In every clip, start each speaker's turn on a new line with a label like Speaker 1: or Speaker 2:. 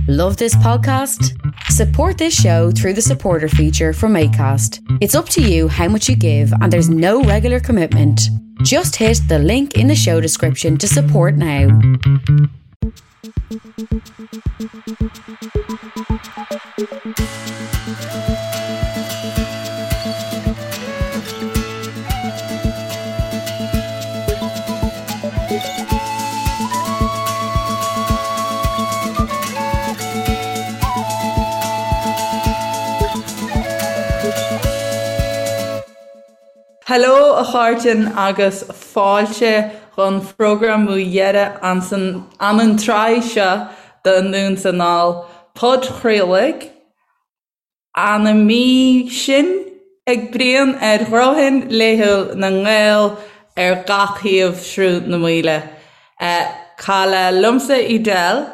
Speaker 1: Love this podcast? Support this show through the supporter feature from ACAST. It's up to you how much you give, and there's no regular commitment. Just hit the link in the show description to support now.
Speaker 2: Hello a chairde agus fáilte dhon phrógram dheireadh ansan an tsraith seo de Anonn 's Anall, podchraoladh Ana mí sin ag bruíon ar ghnóthain laethúil na nGael ar gach thaobh Shruth na Maoile. Cailleadh liomsa Edel,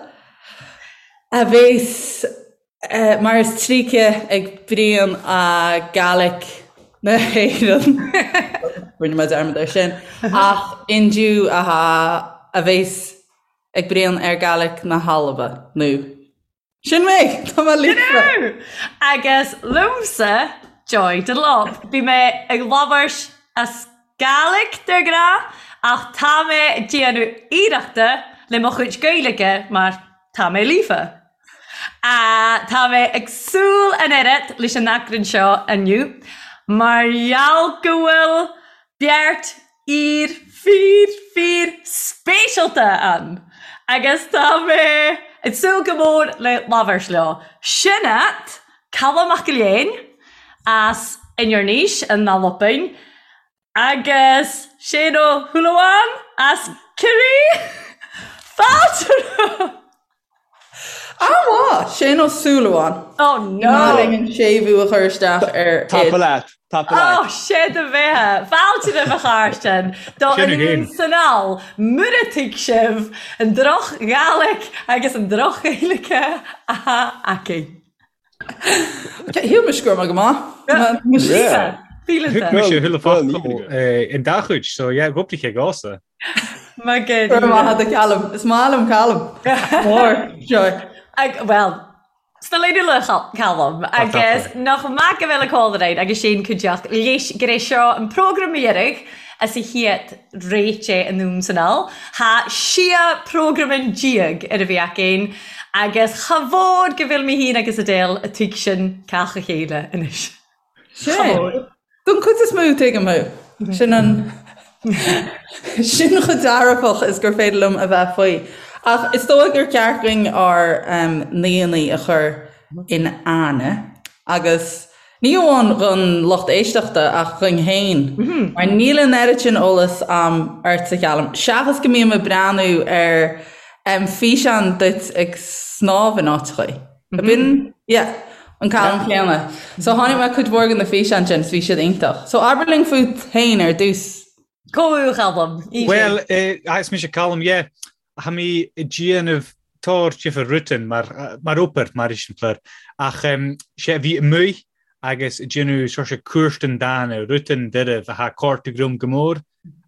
Speaker 2: a bhéas mar is tríce ag bruíon a Gaelic na hÉireann, rinne mé dearmad air sin, ach indiu a bhéas ag bruíon ar Gaelic na hAlba, nó. Sin mé! Tá mé
Speaker 3: líofa! Agus liomsa, Joy Dunlop. Bhí mé ag labhairt as Gàidhlig de ghnáth ach tá mé ag déanamh iarrachta le mo chuid Gaeilge mar tá mé líofa. Tá mé ag súil an oiread leis an eagrán seo inniu mar gheall go bhfuil beirt fhear fíor fíor speisialta ann agus tá mé ag súil go mór le labhairt leo. Sin iad Calum Mac Léin as Inbhir Nis in Albain agus Seán Ó Súilleabháin as Ciarraí. Fáilte romhaibh!
Speaker 2: An-mhaith! Séan Ó Súilleabháin.
Speaker 3: Oh no! Ní
Speaker 2: maith linn an séimhiú a chur isteach ar
Speaker 4: Tapa leat! Tapa leat!
Speaker 3: Oh, sé do bheatha! Fáilte roimh a chairde do Anonn 's Anall, mura dtuig sibh an droch-Ghàidhlig agus an droch-Ghaeilge atá againn.
Speaker 2: Shíl mise go raibh mé go maith.
Speaker 3: Thuig
Speaker 5: mise chuile focal in dá chuid, so yeah, dhúpla cé gása.
Speaker 3: Maith go
Speaker 2: raibh maith agat Calum. Is maith liom Calum. Mór,
Speaker 3: Joy. Well, sna léine le Calum agus nach maith go bhfuil a cólaráin agus sin cuideachta leis gur é seo an prógram dheiridh as a chéad réite Anonn 's Anall. Tha sia prògraman dìag air a bhith againn agus cha mhòr go bhfuil mi fhìn agus Edel a' tuigsinn càch a chèile anois.
Speaker 2: Cha mhòr. Don chuid is mó tuigim thú. Sin an sin chomh dearfach is gur féidir liom a bheith faoi. Ach is dóigh gur ceart dúinn ár n-aíonna a chur in aithne agus Ní amháin don lucht éisteachta ach dhuinn féin, mar níl an oiread sin eolas a'm ortsa, a Chaluim, seachas go mbím ag breathnú ar físeáin duit ag snámh in áiteachaí. Ab in? Yeah, an Calum céanna. So chonaic mé cuid mhór de na físeáin sin, 's bhí siad iontach. So abair linn fút féin ar dtús.
Speaker 3: Comh a Chaluim.
Speaker 5: Bhuel, is mise Calum, yeah. Tha mi a' dìanamh tòr difir rudan mar mar obair, mar eiseamláir, ach sé a bhith amuigh agus a' dìanamh sòrt cuartan dàna, rudan doirbh a tha cortaidh rium gu mòr,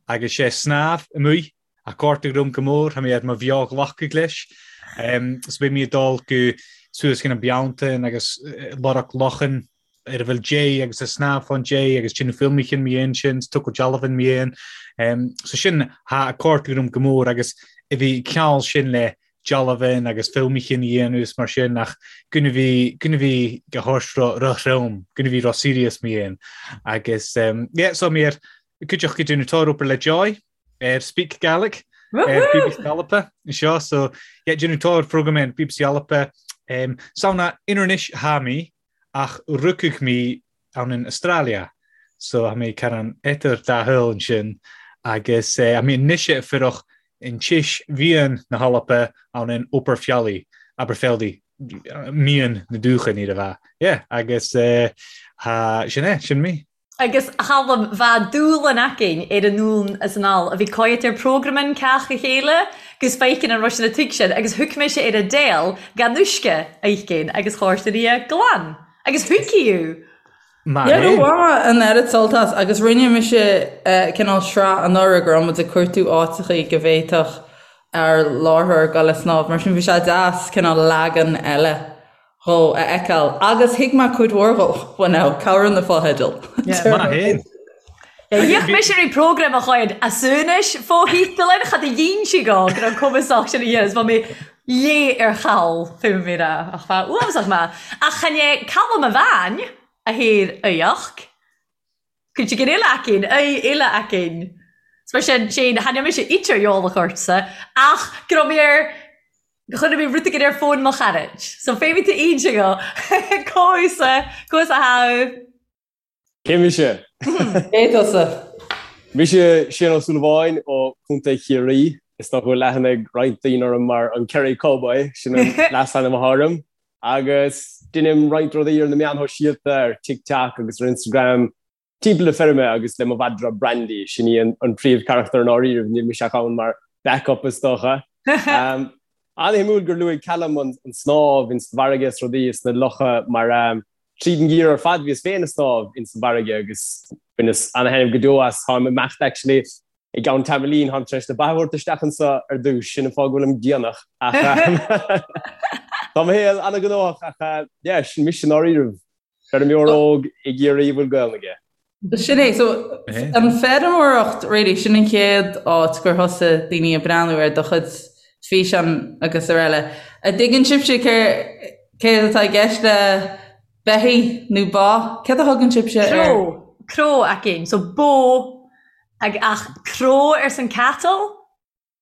Speaker 5: agus sé snámh amuigh a cortaidh rium gu mòr, tha mi air mo bheò-ghlacadh leis. So beidh mi a' dol gu suas gun an Bealtaine agus lorg lochan ar a bhfuil dé agus a' snámh fán dé agus déanamh filmeachan mi dhéan sin, 's tochailt dealbhan mi dhéan. So sin tha a' cortaidh rium gu mòr agus a bhith ceann sin le dealbhan agus filmeachan a dhéanamh is mar sin ach gun a bhith gun a bhith go háit ro-throm, gun a bhith ro-serious mi dhéan. Agus yeah, so mi air cuideachta ag déanamh tòr obair le Joy ar Speak Gaelic ar BBC Alba anseo so yeah, déanamh tòr phrógram ar BBC Alba. Um, Samhna Inbhir Nis tha mi Ach rugadh mi ann in Australia, so tha mi caran eadar dà shaol ansin, agus tha mi anois a' fuireach in tis mheadhan na h-Alba ann in Oberfjällí, Aberfeldy, meadhan na dúchan iad a bheith. Yeah, agus tha, sin é, sin mi.
Speaker 3: Agus a Chaluim, bha dùbhlan againn air anonn as anall a bhith coimhead air prògraman càch a chèile gus feiceann an raibh sin a tuigsinn agus thug mise air Edel gan uisce a fheicinn agus chuir í glan agus thuig í.
Speaker 2: Maith Yeah, do bhain mé an oiread sult as agus rinne mise cineál sraith anuraidh go raibh muid ag cuartú áiteachaí go bhféadfadh. Ár láithreoir ag dul ag snámh, mar sin bhí sé deas cineál leagan eile dhó a fheiceáil agus thuig mé cuid mhór dhó, well now, cabhraíonn na fotheidil.
Speaker 5: Maith fhéin.
Speaker 3: Dhíoch mise ri programm a chuid asúnais fo-thítealainn cha do dhein sí go go raibh cumasach sin a dhéanamh is bha mé léith ar chall fé mo mhí rá ach bha uafásach maith ach chan é Calum a bhean a thaor aíocht. Cuid den uile againn, aoi uile againn. 'S mar sin, Shane, tha mise idir eolach ortsa, ach go raibh mé ar, chuir mé rud éigin ar fón mo charaid. So féadfaidh tú inse go, conas, conas a tha
Speaker 4: Cé mise?
Speaker 2: Cé tusa?
Speaker 4: Mise Shane Ó Súilleabháin ó Chontae Chiarraí. Is dócha go bhfuil aithne ag roinnt daoine orm mar an Kerry Cowboy, sin an leasainm atá orm. Agus deinim roinnt rudaí ar na meáin shóisialta, ar TikTok agus ar Instagram, timpeall na feirme agus le mo mhadra Brandy, sin í an príomhcharachtar i ndáiríribh, níl mise ach ann mar backup is dócha. An-shuimiúil gur luaigh Callum an snámh ins an bhfarraige is rudaí is na locha mar tríd an ngeimhreadh ar fad bhíos féin ag snámh ins an bhfarraige agus bhaineas an-thaitneamh go deo as. Táim ag imeacht actually I gceann tamaillín, táim tar éis na ba a thabhairt isteach anso ar dtús, sin an fáth go bhfuilim déanach, ach tá mo shaol an-ghnóthach ach yeah, sin mise i ndáiríribh, feirmeoir óg i gCiarraí a bhfuil Gaelainn aige.
Speaker 2: Sin é, so an feirmeoireacht really, sin an chéad áit gur thosaigh daoine ag breathnú ar do chuid físeán agus araile. An dtuigeann sibhse céard atá i gceist le beithígh nó ba? Céard a thugann sibhse
Speaker 3: ar? Cró, cró againn, so bó Ag ach cró arsan cattle?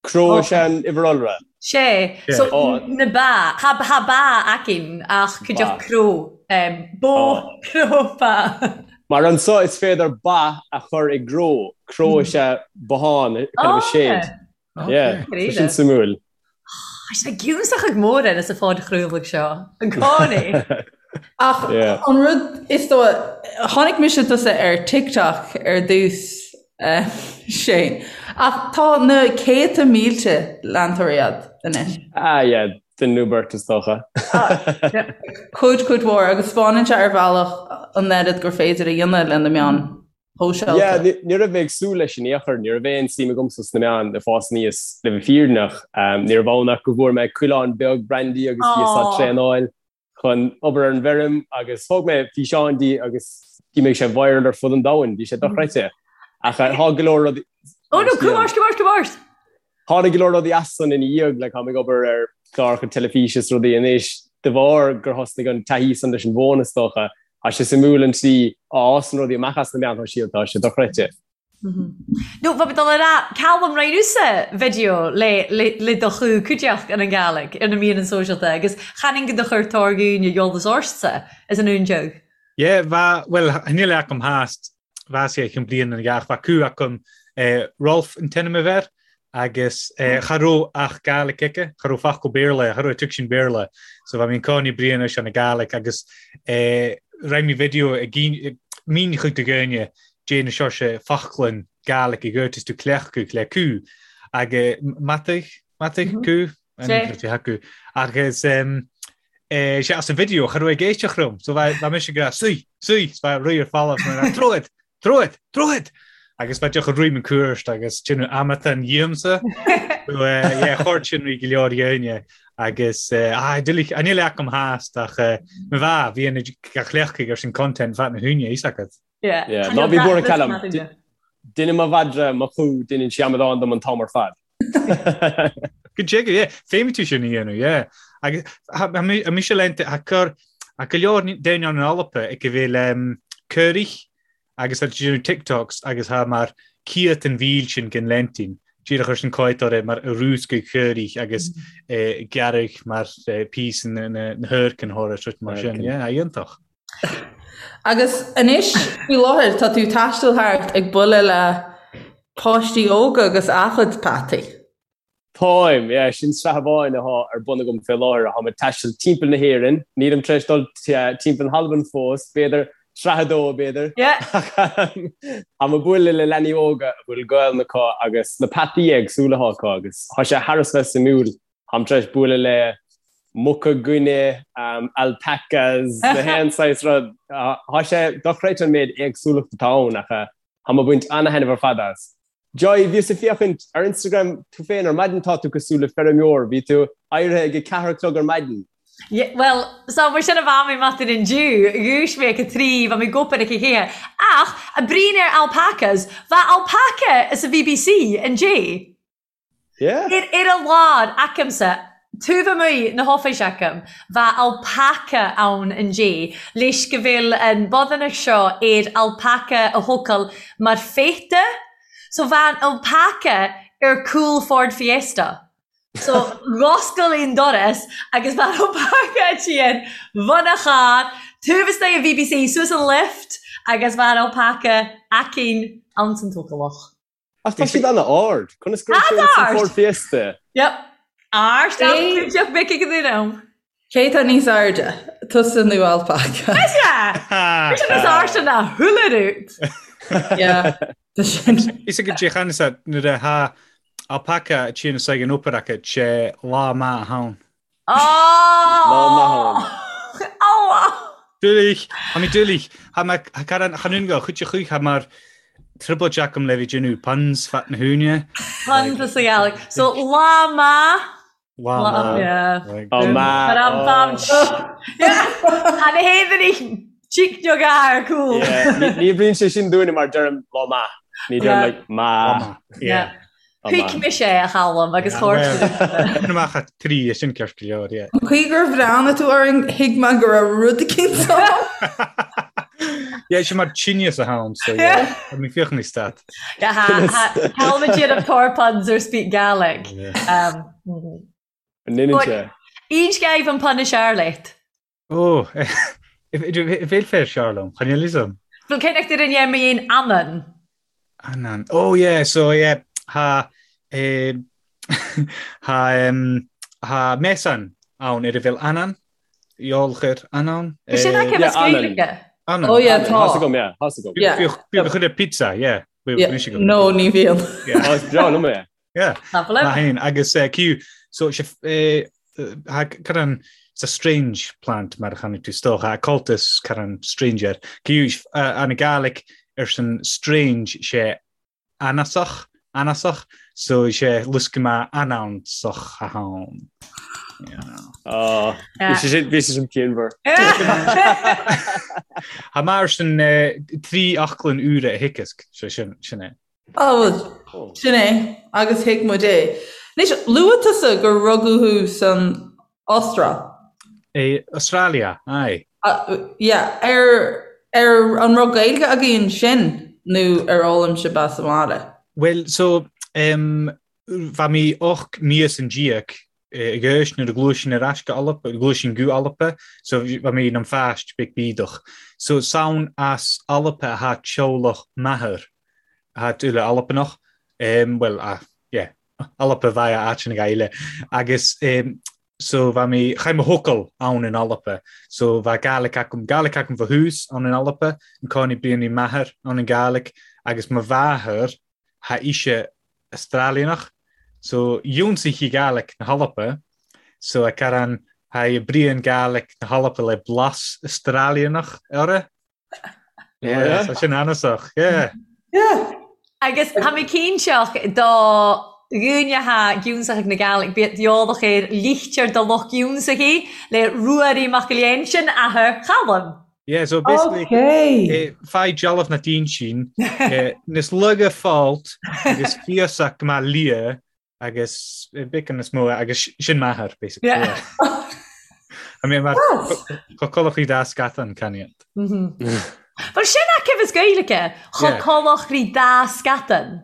Speaker 4: Cró is ea an uimhir iolra.
Speaker 3: Sé. So na ba. Tha tha ba againn ach cuideachd cró. Bó, cró, ba.
Speaker 4: Mar anso is féidir ba a chur i gcró. Cró is ea bothán, kind of a shed. Yeah, tá sin suimiúil.
Speaker 3: Tá sé giúsach ag mór ar sa phodchraoladh seo, i gcónaí.
Speaker 2: Ach an rud is dóigh, chonaic mise tusa ar TikTok ar dtús, Shane, ach tá na céadta mílte leantóirí agat anois.
Speaker 4: Ah yeah, duine nó beirt is dócha.
Speaker 2: Cuid, cuid mhór, agus spáineann sé ar bhealach an oiread gur féidir a dhéanamh le na meáin.
Speaker 4: shóisialta. Yeah, ní raibh mé ag súil leis in aon chor, ní raibh aon suim agamsa sna meáin ag fás aníos le bheith fírinneach. Ní raibh ann ach go bhfuair mé coileán beag Brandy agus bhíos á traenáil chun obair ar an bhfeirm agus thóg mé físeán di agus d'imigh sé viral ar fud an domhain, bhí sé dochreidte. Ach tá go leor rudaí...
Speaker 3: Oh no, come ort, come ort, come ort!
Speaker 4: Tháinig go leor rudaí as san ina dhiaidh, like táim ag obair ar chláracha teilifíse is rudaí anois, de bharr gur thosnaigh an taithí san leis an bhfón is dócha. Tá sé suimiúil an tslí a fhásann rudaí amach as na meáin shóisialta, tá sé dochreidte.
Speaker 3: No, bha mi dol a ràdh, Calum rinn thusa video le le do chú cuideachd ann an Gàidhlig air na meadhanan sòisealta agus chanainn gu do chuir tòr dhùine eòlas ortsa as an ùndeag.
Speaker 5: Yeah, bha, bhuel, níl agam theast bha sé chun bliain an gheach bha cú agam Rolf an t-ainm a bheir agus cha raibh ach Gàidhlig aici, cha raibh focal Béarla, cha raibh tuigsin Béarla, so bha mi an cònaí Brian leis an Gàidhlig agus rinne mé video ag mín chuig do dhaoine déanamh seo sé foclainn Gàidhlig i gcuirt is tú cleachtadh le cú agus mataigh, mataigh cú? Acu agus sé as an video cha raibh ag éisteacht liom so bha mise ag rá suigh, suigh, 's bha rith ar falamh mar troid, troid, troid! Agus bha deoch a roim an cuairt agus déanamh amatán dhíomsa. So yeah, chuir sin rí go leor dhéine agus ah, níl agam theast ach mo bha bhí an gach leachtaigh ar sin content fat na húine is agat.
Speaker 3: Yeah.
Speaker 4: Yeah, ná bí buartha Callum. Deineann mo mhadra mo chú, deineann sí amadán dom an t-am ar fad.
Speaker 5: Go dtuige, yeah. Féadfaidh tú sin a dhéanamh, yeah. Agus tha mise léannta, tha cur, tha go leor daoine ann in Alba ag a bheith le caoirigh agus tá déanamh TikToks agus tha mar ciat an mhíl sin den leintín, díreach ar sin cáitóir mar a rúscaigh caoirigh agus gearradh mar píosa na hurcan thóra mar sin, yeah, iontach.
Speaker 2: Agus anois, faoi láthair, tá tú ag taisteal thart ag bualadh le páistí óga agus a gcuid peataí.
Speaker 4: Táim, yeah, sin sraith amháin atá ar bun agam fé láthair. Táim ag taisteal timpeall na hÉireann. Nílim tar éis dul timpeall na hAlban fós, b'fhéidir sraith a dó, b'fhéidir. Táim ag bualadh le leanaí óga a bhfuil Gaelainn acu agus na peataí éagsúla atá acu agus tá sé thar a bheith suimiúil. Táim tar éis bualadh le muca guine, alpacas, na haon saghas rud. Tá sé dochreidte an méid éagsúlacht atá ann ach táim ag baint ana-thaitneamh ar fad as. Joy, bhíos ag féachaint ar Instagram tú féin ar maidin, tá tú cosúil le feirmeoir, bhí tú éirithe ag a ceathair a chlog ar maidin.
Speaker 3: Yeah, well, so mar sin a bha mi maidin indiu, dhúis mé ag a trí, bha mi ag obair ag a ceathair. Ach, a' bruidhinn air alpacas, bha alpaca sa BBC indé.
Speaker 4: Yeah.
Speaker 3: Ar, ar a lár, agamsa, taobh amuigh na hoffice agam, bha alpaca ann indé, leis go bhfuil an bodhanach seo ar alpaca a thógáil mar pheata. So bha an alpaca ar cúl Ford Fiesta. So dh'oscail an doras agus bha an alpaca a tchíonn bhun a charr, taobh istigh an BBC, suas an lift agus bha an alpaca aicinn ann san tócalach.
Speaker 4: Ach tá siad an-ard. Conas go raibh sé ins an Ford Fiesta?
Speaker 3: Yep. Ard ach clúiteach mic ag an duine ann.
Speaker 2: Cé tá níos airde, tusa nó alpaca?
Speaker 3: Mise! Mise níos airde ná chuile rud.
Speaker 2: Yeah, tá sin.
Speaker 5: Is ag dé chan is nuair a tha alpaca a tchíonn is ag an obair acu sé lá maith ann.
Speaker 3: Lá
Speaker 4: maith ann.
Speaker 5: Dúlaich, Tá mé dúlaich. Tá mé chan chan go chuid chuich tá mar trioblóid agam le bhí déanamh puns fat na húine.
Speaker 3: Puns is a Ghaeilge. So lá maith.
Speaker 5: Lá maith.
Speaker 3: Yeah.
Speaker 4: Lá maith.
Speaker 3: Mar am bam. Tá na héadaí chic no gar cool.
Speaker 4: Ní bhíonn sé sin dúinne mar deirim lá maith. Ní deirim like maith.
Speaker 3: Yeah. Thuig mise é a Chaluim agus chuir
Speaker 5: amach a trí é sin ceart go leor, yeah.
Speaker 2: An chaoi gur bhreathnaigh tú orainn thuig mé go raibh rud eicínt ann.
Speaker 5: Yeah, sin mar tinneas atá ann, so yeah. Tá mé féachaint níos stat.
Speaker 3: Yeah, Calum ag déanamh tor puns ar speak Gaelic.
Speaker 4: An ndéanann sé?
Speaker 3: Aon sceimh an pun is fhearr leat?
Speaker 5: Ó, bhfuil féar seo liom, chan fhios liom.
Speaker 3: Bhfuil cé nach dtuigeann dhéan mé aon anann?
Speaker 5: Anann. Oh yeah, so yeah, tha eh, tha em, tha measan ann ar a bhfuil anann, eolchair anann.
Speaker 3: Is sin aici
Speaker 4: Yeah,
Speaker 3: as Gaeilge.
Speaker 5: Anann.
Speaker 2: Oh yeah, tá.
Speaker 4: Thá's agam, yeah, thá's agam.
Speaker 2: Yeah.
Speaker 5: Bíonn chuile pizza, yeah.
Speaker 2: Yeah. No, ní bhíonn.
Speaker 5: Yeah.
Speaker 4: Oh, is breá liom é.
Speaker 5: Yeah.
Speaker 3: Lovely.
Speaker 5: Maith fhéin. Agus eh, Q, so sé eh, ha, caran, it's a strange plant mar a chonaic tú is dócha, a cultus caran stranger. Q, eh, an Gaelic ar san strange sé anasach, anasach, so sé luscama anannsach a hán. Yeah.
Speaker 4: Oh,
Speaker 3: Yeah.
Speaker 4: bhí sé sin- bhí sé sin pianmhar.
Speaker 5: Ha mar sin eh, trí aclann úra a thiocfasc, sé sin, sin é.
Speaker 2: Á bhuel, sin é, agus thuig muid é. Anois, luaigh tusa gur rugadh thú san Astráil.
Speaker 5: I Australia, aye.
Speaker 2: Yeah, ar, ar an raibh Gaeilge agaibh ansin nó ar fhoghlaim sibh as an mbaile?
Speaker 5: Bhuel, so, em, bha mi och míosan déag ag aois nuair a ghluais sinn ar ais go Alba, ghluais sinn go Alba, so bha mi nam phaist beag bídeach. So 's ann as Alba atha teaghlach m'athar, atha uile Albanach, em, bhuel, ah, yeah, Alba bha áiteanna eile. Agus em, so bha mi, chaith mo thocal ann in Alba, so bha Gàidhlig agam, Gàidhlig agam fo thús ann in Alba, an cònaí bruidhinn m'athair ann an Gàidhlig, agus mo mháthair, tha ise Astralianach so dh'ionsaigh sí Gàidhlig na hAlba so a caran tha i bruidhinn Gàidhlig na hAlba le blas Astralianach orra. Yeah, so sin anasach, yeah.
Speaker 2: Yeah.
Speaker 3: Agus tha mi cinnteach do dhuine tha gionnsaich ag na Gàidhlig bíodh eòlach air lichtir do lucht gionnsachaidh le Ruairidh MacGill-Eain sin athair Chaluim.
Speaker 5: Yeah, so basically,
Speaker 2: Okay.
Speaker 5: eh, faigh dealbh na dínn eh, níos laige fáilt agus fiosach go maith lia agus eh, bacon is mó agus sin m'athair, basically.
Speaker 3: Yeah.
Speaker 5: Yeah. I mean, mar
Speaker 2: Yes.
Speaker 5: cho colachaí dá scatan caniant.
Speaker 3: Well sin acu as Gaeilge, cho
Speaker 5: Yeah.
Speaker 3: colach rí dá scatan.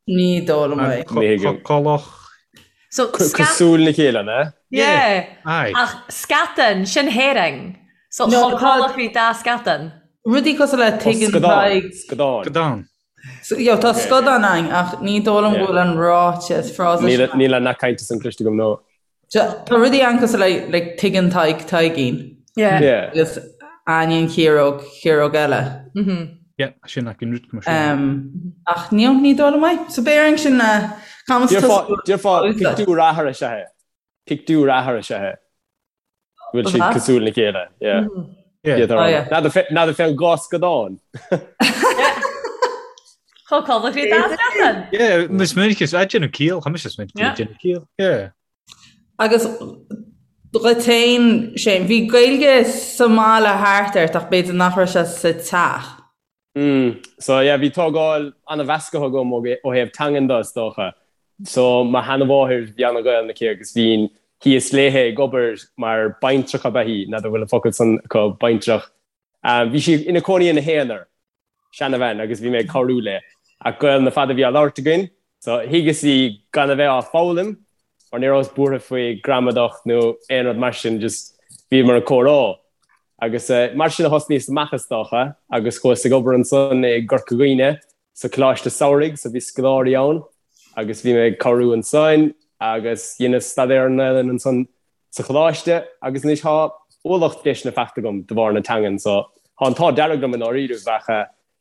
Speaker 2: Ní dóigh liom é.
Speaker 4: Ní thuigim.
Speaker 5: Colach.
Speaker 3: So scat
Speaker 4: Cosúil le chéile, ne?
Speaker 3: Yeah.
Speaker 5: Aye.
Speaker 3: Ach scatan, sin herring. So
Speaker 2: No,
Speaker 3: cho
Speaker 2: tá-
Speaker 3: colach rí dá scatan.
Speaker 2: Rudaí cosúil le tuigeann
Speaker 4: Scadán.
Speaker 2: Tadhg.
Speaker 4: Scadán.
Speaker 5: Scadán.
Speaker 2: So, yo, tá scadán ann ach ní dóigh liom go bhfuil an ráiteas frása
Speaker 4: Níl
Speaker 2: sin.
Speaker 4: níl an nath cainte san cloiste agam nó.
Speaker 2: Tá rudaí ann cosúil le like, tuigeann Tadhg Taidhgín
Speaker 3: Yeah.
Speaker 4: Yeah.
Speaker 2: agus Áine an Chiaróg, Chiaróg eile.
Speaker 5: Yeah, sin ach an rud go sin.
Speaker 2: Um, ach ní ní dóigh liom é. So b'fhéidir sin camas
Speaker 4: Déarfá déarfá pictiúr athar is ea é. Pictiúr athar is ea é. Bhfuil siad
Speaker 2: Aha.
Speaker 4: cosúil le chéile. Yeah.
Speaker 5: Yeah.
Speaker 4: Yeah,
Speaker 2: Oh, yeah.
Speaker 4: N'fheadar fé an dhá scadán.
Speaker 3: Chomh codladh rí dá leathan.
Speaker 5: Yeah, is minic is ag déanamh ciall, tá mise is minic ag déanamh ciall. Yeah.
Speaker 2: Agus dhuit féin, Shane, bhí Gaeilge sa mbaile thart ort ach b'fhéidir nach raibh sé sa teach.
Speaker 4: Mm, so yeah, bhí tógáil an-mheasctha agam ó thaobh teangan de, is dócha. So mo sheanmháthair, bhí an-Ghaelainn aici agus bhínn thíos léithe ag obair mar baintreach ab ea í, n'fheadar an bhfuil an focal san acu, baintreach. Bhí sí ina cónaí ina haonar, seanabhean, agus bhí mé ag cabhrú léi. Ach Gaelainn ar fad a bhí á labhairt againn, so thuigeas í gan a bheith á foghlaim, mar ní rabhas buartha faoi gramadach nó aon rud mar sin, just bhíomar ag comhrá. Agus mar sin a thosnaíos amach is dócha, agus chuas ag obair ansan i gCorca Dhuibhne sa Choláiste Samhraidh, so bhí scoláirí ann agus bhí mé ag cabhrú ansan agus dheineas staidéar ar an nGaelainn ansan sa choláiste agus anois thá ualach deiseanna faighte agam de bharr na teangan so thá an t-ádh dearg liom i ndáiríribh ach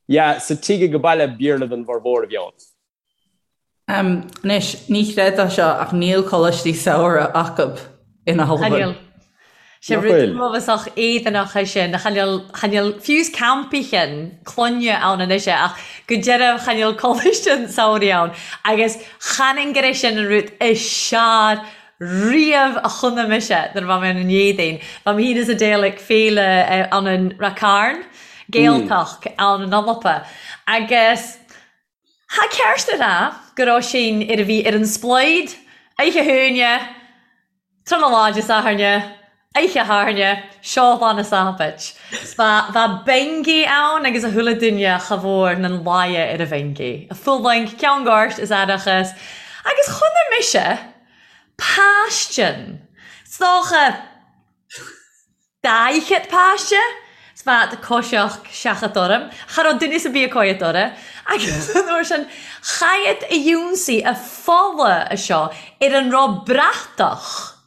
Speaker 4: yeah sa tigh age baile Béarla don bhformhór a bhí ann.
Speaker 2: Anois, ní chreidfeá seo ach níl coláistí samhraidh acub in Albain.
Speaker 3: Níl. Sé rud uafásach éadanach é sin. Chan eil, chan eil fiú 's campaichin clainne ann anois é ach go deimhin chan eil coláiste an tsamhraidh ann agus chan fhinn gur é sin an rud is searr riamh a chonaic mise nuair a bha mé ann an Éadaoin. Bha mé fhìn is Adele ag féile ann an Rath Cairn, Gaeltacht ann an Alba agus Tha ceart a ràdh gur raibh sinn ar a bhith air an splaod oidhche hAoine, tráthnóna lá Dé Sathairne, oidhche Shathairne, seo lá na Sabbait. 'S bha, bha bingy ann agus a chuile duine cha mhór nan laighe ar a bhingy. A fulaingt, ceann goirt is aireachas. Agus chonaic mise paistean. 'S dócha. 40 páiste 's bheadh coiseach seachadta orm. Cha raibh duine 's ar bith ag coimhead orra. Agus an uair sin chaith a dh'ionsaí a fola a seo ar an raibh bratach.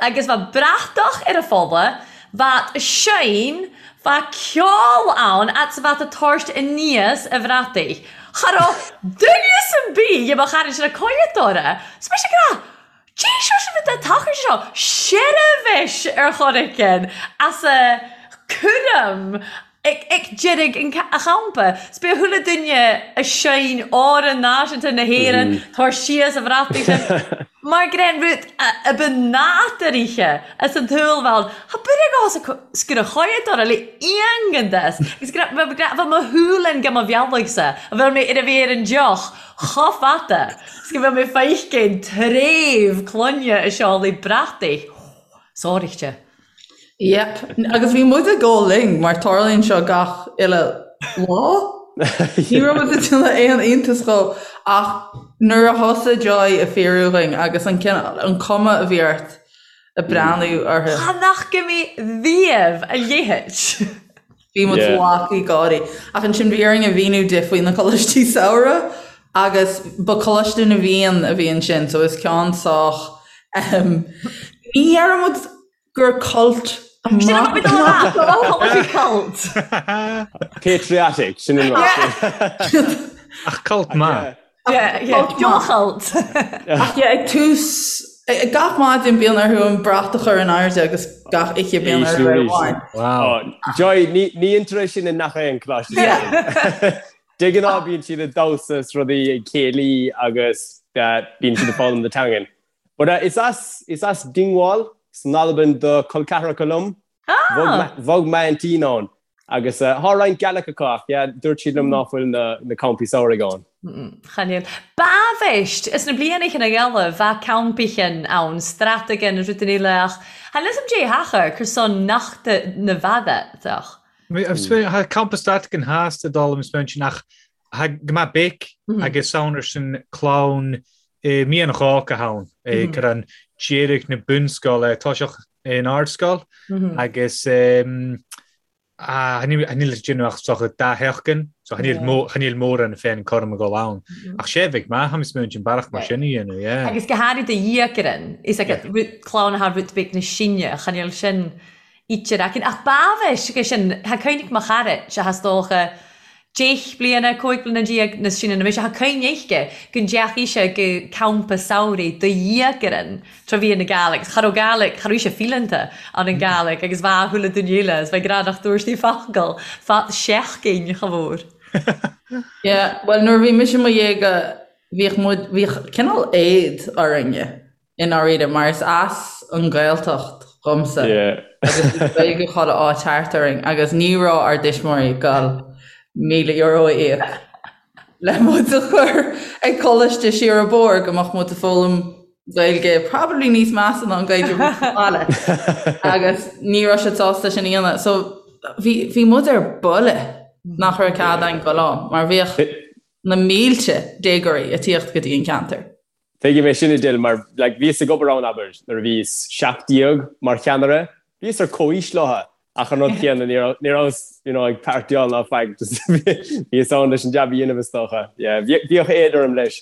Speaker 3: Agus bheadh bratach ar a fola, bheadh seinn, bheadh ceol ann fhad 's bheadh a tabhairt aníos a bhrataigh. Cha raibh duine 's ar bith dhe mo charaid sin ag coimhead orra. 'S mise ag rá, Dé seo sin rud tacair seo seirbhís ar chor éigin as a cúram ag ag deireadh an a champa. 'S b'é chuile duine a sheinn Amhrán Náisiúnta na hÉireann tabhair síos a bhrataigh sin mar gur é an rud a ba nádúraithe as an tsaol bheith ann. Tá buille dhá sa sciorradh choimhead le iongan des agus go raibh bheadh mo shúil go mo bhealach-sa a bheadh mé ar a bhí ar an deoch chomh fada 's go mbeadh mé feicin tréimh clainne a seoladh brataigh sáraíte.
Speaker 2: Yep. Agus bhí muid ag ól linn mar tarlaíonn seo gach uile lá. Ní raibh muid ag déanamh aon iontas dhó ach nuair a thosaigh Joy ag fíorú dhúinn agus an cineál, an cuma a bhí ort ag breathnú orthu.
Speaker 3: Cha nach go mí riamh a leithéid.
Speaker 2: Bhí muid lagtha gáirí. Ach ansin bhí orainn a mhíniú di faoi na coláistí samhraidh agus ba Coláiste na bhFiann a bhí ansin so is ceann sách ehm ní deireann muid gur cult
Speaker 3: Sin a bhí cult.
Speaker 4: Patriotic, sin an rud.
Speaker 5: Ach cult maith.
Speaker 3: Dea-chult.
Speaker 2: Ach yeah, ag tús gach maidin bíonn orthu an brat a chur in airde agus gach oíche bíonn orthu é a bhaint.
Speaker 4: Wow. Joy, ní dhéantar é sin i ngach aon choláiste. De ghnáth bíonn siad ag damhsa is rudaí ag céilí agus bíonn siad ag foghlaim na teangan. But is as is as Dingwall san Albain do col ceathracha liom. Bhog m'aintín ann agus thá roinnt Gaelic acu ach yeah dúirt siad liom ná fuil na campaí samhraidh ann.
Speaker 3: Chan eil. Ba-bhist, is na blianachain eile bha campaichin ann, Stratagan is rudain eile ach chan fhios a'm dè thachair cur son nachta na bhfada ach.
Speaker 5: Tha campa Stratagan theas de dála mo spéin ach tha go maith béic agus ann ar sin clann i mí an Gháca ann gur an deireadh na bunscoile toiseach in ardscoil agus níl déanamh ach socha dá sheachtain so chan eil mórán féin cúram ag dul ann. Ach sé bheidh maith tha mi smaointean bealach mar sin a dhéanamh, yeah.
Speaker 3: Agus go háirid do dhiaidh is ag clann atá rud beag na sine chan eil sin ítear aicinn. Ach ba-bhist go sin, tha cuimhneach mo charaid, sé is dócha deich bliana, 15 bliana nas sine na mise, tha cuimhne aici go ndeachaigh sé go campa samhraidh do dhiaidh tráth bhí na Gàidhlig, cha raibh Gàidhlig, cha raibh sé fileanta ann an Gàidhlig agus bha chuile duine eile is bha grá nach dúirt sí focal fad seachtain cha mhór.
Speaker 2: Yeah, well nuair a bhí mise i mo dhéaga bhíodh muid, bhíodh cineál éad orainne i ndáiríre mar is as an Ghaeltacht dhomsa agus bhí Gaeilge chuile áit thart orainn agus ní raibh ár dtuismitheoirí ag dul €1,000 a íoc le muid a chur ag coláiste siar an bóthar go mbeadh muid ag foghlaim Gaeilge probably níos measa ná an Gaeilge a bhí sa bhaile agus ní raibh siad sásta sin a dhéanamh. So bhí, bhí muid ar buile nach raibh cead againn dul ann mar bhíodh na mílte déagóirí ag tíocht go dtí an ceantar.
Speaker 4: Tuigim é sin Edel mar like bhíos ag obair ann abair nuair a bhíos 17 mar cheannaire, bhíos ar comhaois leo ach an rud céanna ní raibh ní rabhas you know ag partyáil ná faic just bhíos ann leis an jab a dhéanamh is dócha. Yeah bhíodh éad orm leis.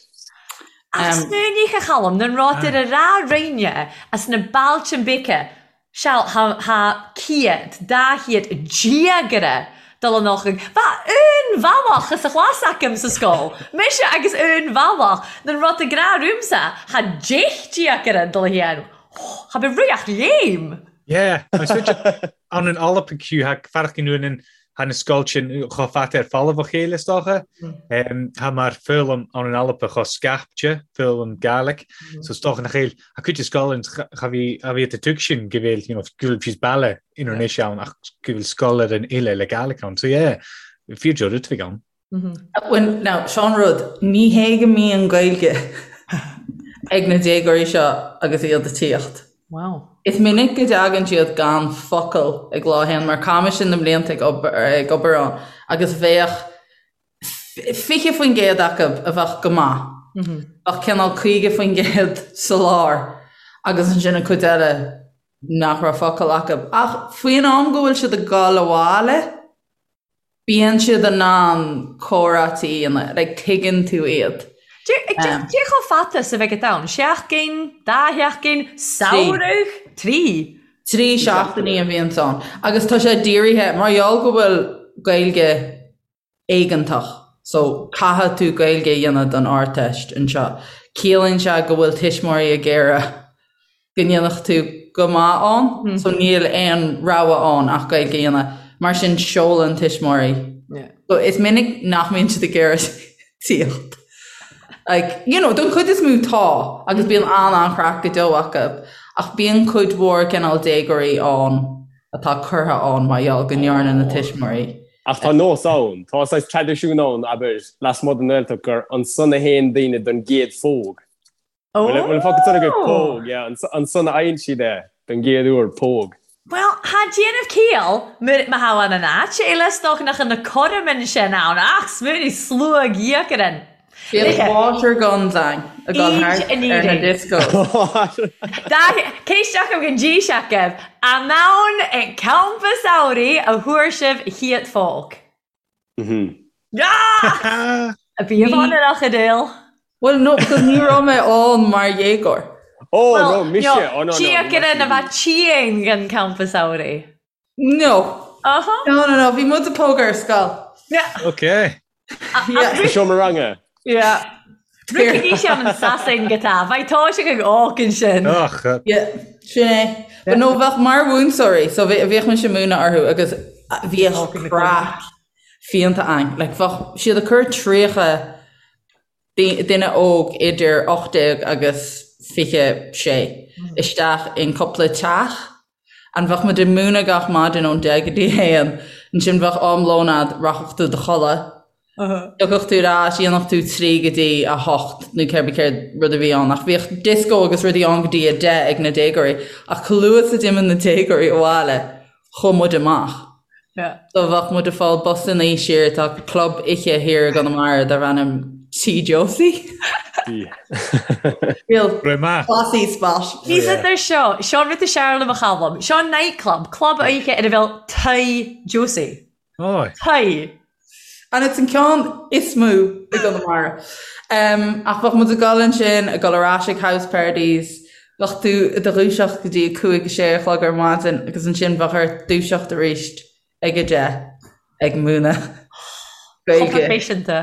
Speaker 3: Ach smaoinigh a Chaluim, nan robh iad a ràdh rinnne as na bailtean beaga Seal, tha cìad, dà chiad dìogaire dol ann chuig. Bha aon bhealach as a chlas agam sa sgoil, mise agus aon bhealach, nan rud a gnàth riumsa, tha deich dìogaire dol a hian. Tha mi ruadh léim!
Speaker 5: Yeah, ann an Alba fiú, tha fearacht an Tha na sgoiltean cho fada air falamh ó chéile, is dócha. Tha mar foghlaim ann an Alba cho scaipte, foghlaim Gàidhlig. So is dócha nach eil, tha cuid de sgoileann cha bhí, cha bhí a tug sin go bhfuil, you know, go bhfuil fios baile inar anois ann ach go bhfuil sgoil ar an uile le Gàidhlig ann. So yeah, fíor rud a bheidh ann.
Speaker 2: Well, now, seo an rud, ní hé go mbíonn Gaeilge ag na déagóirí seo agus iad ag tíocht.
Speaker 3: Wow.
Speaker 2: Is minic go dtagann siad gan focal ag lá a haon, mar chaith mise na blianta ag obair, ag obair ann agus bheadh 20% acu a bheadh go maith, bheadh cineál 50% sa lár agus ansin an chuid eile nach raibh focal acu. Ach faoin am go bhfuil siad ag dul abhaile, Bíonn siad in ann comhráití a dhéanamh, like tuigeann tú iad.
Speaker 3: Cé chomh fada 's a bheidh it ann? Seachtain? Dá sheachtain? Samhradh? Trí?
Speaker 2: Trí seachtainí a bhíonns ann. Agus tá sé dírithe, mar gheall go bhfuil Gaeilge éigeantach, so caithfidh tú Gaeilge a dhéanamh don Ardteist anseo, ciallaíonn sé go bhfuil tuismitheoirí ag iarraidh go ndéanfadh tú go maith ann, so níl aon rogha ann ach Gaeilge a dhéanamh, mar sin seolann tuismitheoirí. So is minic nach mbíonn siad ag iarraidh tíocht. Like, you know, don chuid is mó tá, agus bíonn an-an-chraic go deo acu, ach bíonn cuid mhór cineál déagóirí ann atá curtha ann mar gheall go ndearna na tuismitheoirí.
Speaker 4: Ach tá nós ann, tá saghas traidisiún ann, abair, lasmuigh den nGaeltacht gur ansan a théann daoine don gcéad phóg. Bhfuil an focal san agaibh? Póg, yeah. Ansan a fhaigheann siad é don gcéad uair, póg.
Speaker 3: Bhuel, tha dèanamh cìall, ma tha ann an àit eile 's dòcha nach an na coraman sin ann, ach smaoinigh sluag dìogaran.
Speaker 2: Bíodh water guns ann ag dul thart ar na discos.
Speaker 3: Ceist agam don dís agaibh, an ann ag campa samhraidh a fuair sibh chiad phóg? Bhí ann ar Achadale.
Speaker 2: Well no, because ní raibh mé ann mar dhéagóir.
Speaker 4: Oh no, mise, oh no, no.
Speaker 3: Tíocaire na bheith tíang an campa samhraidh.
Speaker 2: No.
Speaker 3: Uh-huh.
Speaker 2: No, no, no, bhí muid ag pógadh ar scoil.
Speaker 3: Yeah.
Speaker 5: Okay.
Speaker 2: Yeah.
Speaker 4: Sa seomra ranga.
Speaker 2: Yeah.
Speaker 3: Rúcaigí sé an Sasain go tá, bheidh tá sé ag ócan sin.
Speaker 5: Ach.
Speaker 2: Yeah, sin é. But no, bheadh mar mhúinteoirí, so bhíodh mise ag múineadh orthu agus bhíodh craic fiánta ann. Like, bheadh siad ag cur 30 duine óg idir 18 agus 26 isteach in cúpla teach. And bheadh muid ag múineadh gach maidin ón 10 go dtí 1, ansin bheadh am lóin a'd, rachadh tú do chodladh, thiocfadh tú ar ais, dhéanfadh tú 3 go dtí 8 nó cébí céard rud a bhí ann, ach bhíodh disco agus rudaí ann go dtí 10 ag na déagóirí, ach chomh luath is a d'imigh na déagóirí abhaile, chuaigh muid amach. So bheadh muid ag fáil busannaí siar, tá club oíche thiar i gConamara darb ainm Tí Josie. Real classy spot.
Speaker 3: Bhí siad ar seo, seo rud is fearr liom a Chaluim, seo nightclub, club oíche ina bhfuil Tigh Josie. Tigh.
Speaker 2: And it's an ceann is mó i gConamara. Um, ach bheadh muid ag dul ansin, ag dul ar ais ag house parties, bheadh tú i do dhúiseacht go dtí a cúig, a sé a chlog ar maidin agus ansin bheadh ort dúiseacht arís ag a deich ag múineadh
Speaker 3: Chomh Gaeilge proifisiúnta.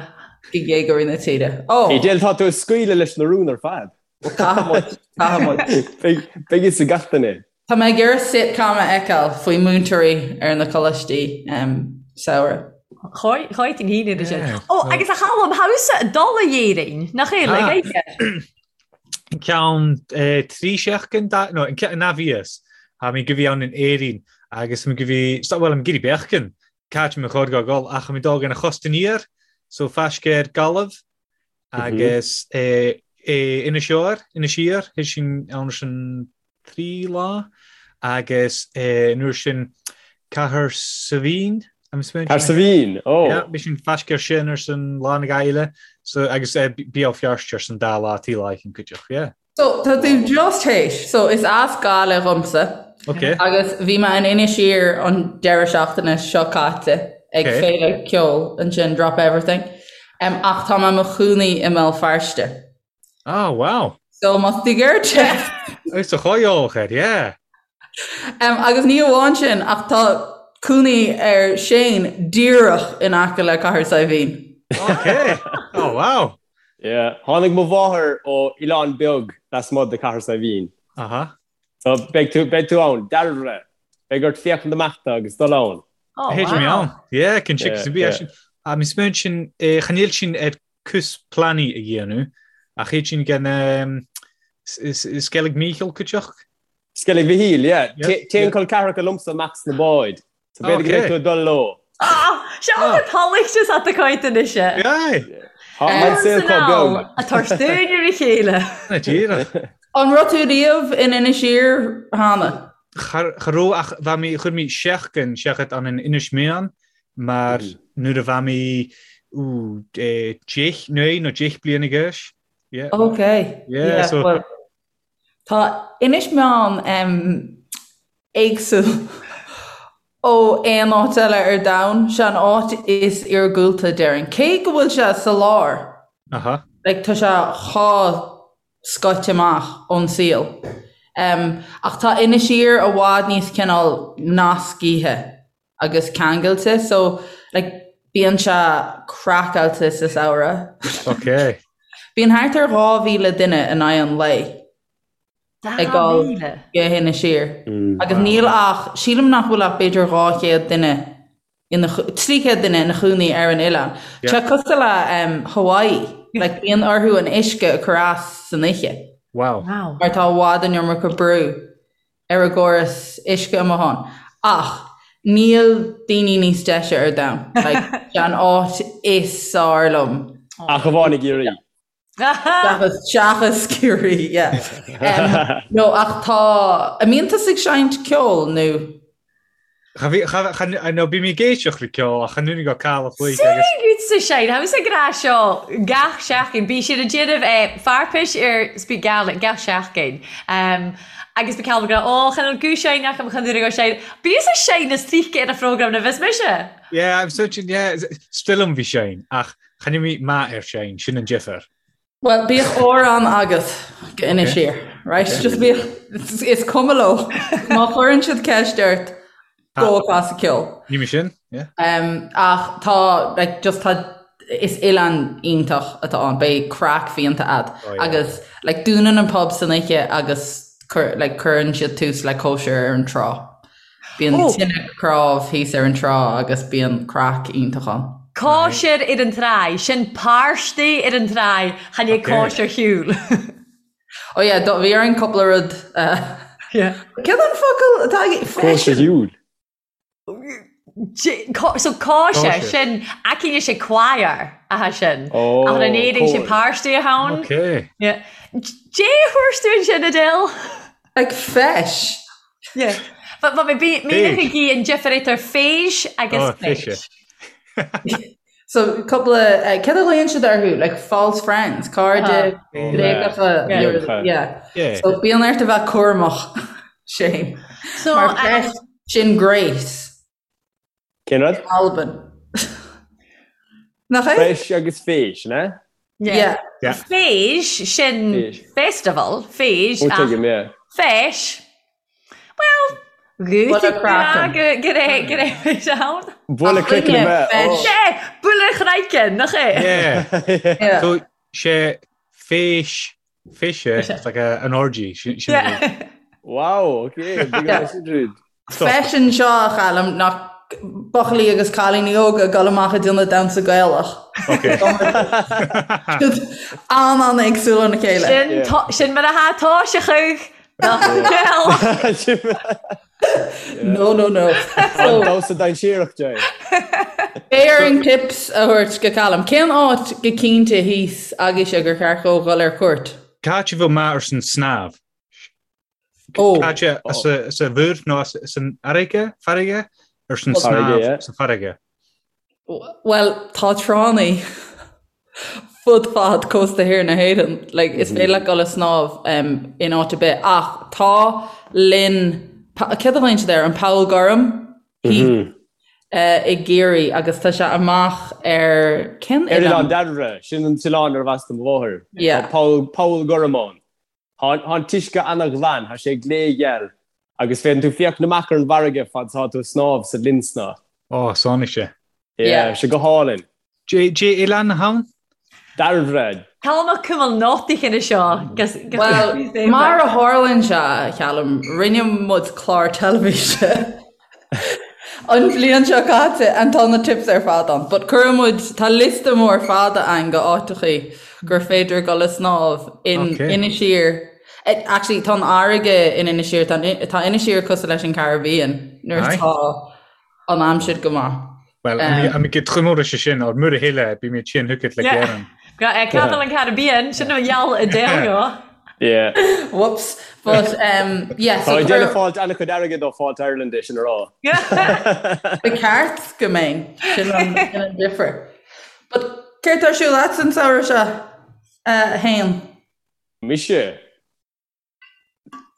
Speaker 2: do dhéagóirí na tíre. Ó!
Speaker 4: Edel, tá tú ag scaoileadh leis na rúin ar fad.
Speaker 2: Caithfidh muid, caithfidh muid.
Speaker 4: Beidh a fhios ag gach duine.
Speaker 2: Tá mé ag iarraidh sitcom a fheiceáil faoi múinteoirí ar na coláistí samhraidh.
Speaker 3: Cháitín hín idir sin. Ó, agus a Chaluim, thusa ag dul a Éirinn, nach é, le Gaeilge?
Speaker 5: Ceann trí seachtain, no, na bhíos, tha mi gu bhith ann in Éirinn agus mi gu bhith, bhuel, mi ag iarraidh beagan, càit mi chòir gu gol, ach mi dol an chòsta aniar, so faisg air Gallaibh agus Inis Oírr, Inis Oírr, théid sinn ann sin trí lá agus an uair sin Cahersiveen,
Speaker 4: Cahersiveen, ó!
Speaker 5: Yeah, bhí sinn faisg air sin ar san lá na Gaeilge so agus Béal Feirste ar san dá lá taobh leis an cuideachta, yeah.
Speaker 2: So, tá tú just théis, so is as Gaillimh dhomsa.
Speaker 5: Ok.
Speaker 2: Agus bhí mé in Inis Oírr an deireadh seachtaine seo caite ag féile ceoil ansin, Drop Everything. Um, ach tá mé i mo chónaí i mBéal Feirste.
Speaker 5: Oh, wow.
Speaker 2: So más tú geirte.
Speaker 5: Is a choióch air, yeah.
Speaker 2: Um, agus ní amháin sin ach tá cónaí ar Shane díreach in aice le Cathair Saidhbhín.
Speaker 5: Ok. Oh, wow.
Speaker 4: Yeah. Tháinig mo mháthair ó oileán beag lasmuigh de Cathair Saidhbhín.
Speaker 5: Aha.
Speaker 4: So beidh tú, beidh tú ann, dearbhra. Beidh ort féachaint amach do agus dul ann.
Speaker 3: Oh,
Speaker 5: Théid mé
Speaker 3: wow.
Speaker 5: ann. Yeah, cin
Speaker 4: Yeah,
Speaker 5: sin bí
Speaker 4: yeah.
Speaker 5: sin. A mi smaoin sin, eh, chan eil sinn ar cús pleanaí a dhéanamh, ach théid sinn gan um, Skellig Michíl cuideach.
Speaker 4: Skellig Mhichíl, yeah.
Speaker 5: Yeah,
Speaker 4: Téann
Speaker 5: yeah.
Speaker 4: col ceathracha liomsa amach sna báid. So b'fhéidir go mbeidh tú ag dul leo.
Speaker 3: Ah, seo an tulacht is at coit anois.
Speaker 5: Aye.
Speaker 4: Tá an saol chomh beag.
Speaker 3: A tabhairt dúinn ar a chéile.
Speaker 5: Na díreach.
Speaker 2: An raibh tú riamh in Inis Oírr cheana?
Speaker 5: Cha raibh ach bha mi, chuir mi seachtain seachad ann in Inis Meáin mar nuair a bha mi deich, naoi nó deich bliana d'aois. Yeah.
Speaker 2: Ok.
Speaker 5: Yeah, so.
Speaker 2: Well, tá Inis Meáin um, éagsúil ó aon áit eile ar domhan. Sé an áit is iargúlta déarfainn. Cé go bhfuil sé sa lár,
Speaker 5: Aha.
Speaker 2: like, tá sé chomh scoite amach ón saol. Um, ach tá Inis Oírr i bhfad níos cineál nascaithe agus ceangailte, so like, bíonn sé craiceáilte sa samhradh.
Speaker 5: Ok.
Speaker 2: Bíonn thart ar 2,000 duine in aghaidh an lae. ag dul go hInis Oírr. Agus níl ach, sílim nach bhfuil ach b'fhéidir 200 duine ina, 300 duine ina chónaí ar an oileán. Tá sé cosúil le Hawaii, like bíonn orthu an uisce a chur as san oíche.
Speaker 5: Wow.
Speaker 2: Mar tá i bhfad an iomarca brú ar an gcóras uisce amuigh ann. Ach níl daoine níos deise ar domhan. Like, sé an áit is fearr liom.
Speaker 4: Ach amháin i gCiarraí.
Speaker 2: Seachas, seachas Ciarraí, yeah. Um, no, ach tá, an mbíonn tusa ag seinnt ceoil nó?
Speaker 5: Cha bhí, cha, cha, no, bím ag éisteacht le ceol ach chan úna go cail a chloig agus.
Speaker 3: Sin sa sein, tha mise ag ràdh seo gach seachdain, bidh siad a' dèanamh eh, fairpis air Speak Gaelic gach seachdain. Um, agus bidh Calum ag ràdh, Ó, chan eil gu-seinn agam chan eil gu-seinn. Bíos a' seinn as trice air a' phrógram na bhios mise.
Speaker 5: Yeah, I'm searching, yeah, still um bhí seinn, ach Chan eil mi math air seinn, sin an difear.
Speaker 2: Bhuel, bíodh amhrán agat go Inis Oírr, right? Just bíodh, is cuma leo. Má chuireann siad ceist ort, gabh a' casadh ceoil.
Speaker 5: Ní mé sin, yeah.
Speaker 2: Um, ach tá, like, just tá, is oileán iontach atá ann, beidh craic fiánta a'd.
Speaker 5: Oh, yeah.
Speaker 2: Agus, like, dúnann an pub san oíche agus cuir, like, cuireann siad tús le cóisir ar an trá. Bíonn
Speaker 3: Ó!
Speaker 2: tine cnámh thíos ar an trá agus bíonn craic iontach ann.
Speaker 3: Cóisir ar an tráigh, sin pàrtaidh air an tràigh, chan e
Speaker 5: Ok.
Speaker 3: cóisir shiubhal.
Speaker 2: Ó yeah, do, bhí orainn cúpla rud eh,
Speaker 3: Yeah.
Speaker 2: Céard an focal atá ag
Speaker 4: Cóisir shiúil.
Speaker 3: J- có- So cóisir,
Speaker 5: Cóisir.
Speaker 3: sin aicíne sé choir atha sin.
Speaker 4: Ó,
Speaker 3: Ach an Éirinn sé
Speaker 4: cóir.
Speaker 3: pàrtaidh a th' ann.
Speaker 5: Ok.
Speaker 3: Yeah. Dè a thuirt tú ansin Adele?
Speaker 2: Like feis.
Speaker 3: Yeah. But but bhí mé ag an difear idir feis agus
Speaker 5: Oh,
Speaker 3: feis.
Speaker 5: fiche.
Speaker 2: So cúpla eh, céard a ghlaonn siad orthu like false friends, cairde bréagacha
Speaker 3: Yeah.
Speaker 2: yeah. yeah.
Speaker 5: Yeah.
Speaker 2: So bíonn ort a bheith cúramach Shane.
Speaker 3: So
Speaker 2: Mar
Speaker 3: um,
Speaker 2: feis sin great.
Speaker 4: Cén rud?
Speaker 2: Albain. Nach é?
Speaker 4: Feis agus feis, ne?
Speaker 3: yeah.
Speaker 2: Yeah.
Speaker 3: Feis sin
Speaker 4: Feis.
Speaker 3: festival, feis
Speaker 4: Ó
Speaker 3: ach
Speaker 4: tuigim, yeah.
Speaker 3: feis. Well,
Speaker 2: Bualadh craiceann.
Speaker 3: go raibh ann.
Speaker 4: Bualadh craiceann a bheith.
Speaker 2: Feis.
Speaker 3: Sé, bualadh craiceann, nach é?
Speaker 5: Yeah.
Speaker 2: Yeah.
Speaker 5: So sé feis, feise, it's like a, an orgy. Sin, sin
Speaker 3: Yeah.
Speaker 4: Wow, okay. Big
Speaker 2: Yeah.
Speaker 4: nice rud.
Speaker 2: Feisean seo a Chaluim nach. buachaillí agus cailíní óga ag dul amach ag déanamh damhsa Gaelach. An-an-éagsúil óna chéile.
Speaker 3: Sin mar atá tá sé chuig
Speaker 2: No, no, no.
Speaker 4: An damhsa dainséarach, Jay.
Speaker 2: Beidh orainn tips a thabhairt go Callum. Cén áit go cinnte thíos agaibhse gur cheart dhó dhul ar cuairt?
Speaker 5: Cá háit a bheadh maith ar son snámh?
Speaker 2: Ó.
Speaker 5: Cá háit sa mhuir nó san fharraige, farraige? Ar son snámh sa farraige.
Speaker 2: Bhuel, tá tránna fud fad cósta thiar na hÉireann. Like, is féidir leat dul ag snámh um, in áit ar bith. Ach tá linn, céard a ghlaonn siad air, an Poll Gorm mm -hmm. uh, i gCiarraí agus tá sé amach ar
Speaker 4: cén Ar Oileán Dairbhre, sin an t-oileán arbh as do mo mháthair.
Speaker 2: Yeah.
Speaker 4: Tá Poll, Poll Gorm ann. Tá an t-uisce ana-ghlan, tá sé glégheal, agus féadann tú féachaint amach ar an bhfarraige fad is atá tú ag snámh sa linn snámha.
Speaker 5: Ó, sánigh sé.
Speaker 4: Yeah, sé go hálainn.
Speaker 5: Cad é oileán atá ann?
Speaker 4: Dairbhre.
Speaker 3: Callum a cuimil nótaí chine seo.
Speaker 2: Bhuel, mar a tharlaíonn sé, a Chalum, rinne muid clár teilifíse An bhliain seo caite and tá na tips ar fad ann. But cuireann muid, tá liosta mór fada ann go áiteachaí gur féidir dul ag snámh in
Speaker 5: Okay.
Speaker 2: Inis Oírr. Eh, Actually, tá an fharraige in Inis Oírr, tá an- tá Inis Oírr cosúil leis an Caribbean nuair
Speaker 5: Aye.
Speaker 2: atá an aimsir go maith.
Speaker 5: Well, um, am go trumóra sé sin ar mura chéile bí mé sin thucad le géan.
Speaker 3: Capital an Caribbean sin an gheall i dé
Speaker 4: Yeah.
Speaker 2: Whoops. But um, yeah,
Speaker 4: so Tá déanamh fáilt an-chuid airgid ó Fáilte Ireland é sin a rá.
Speaker 2: Ba ceart go mbeinn sin an sin an difear. But céard tá ar siúl agat an samhradh seo uh, Shane?
Speaker 4: Mise.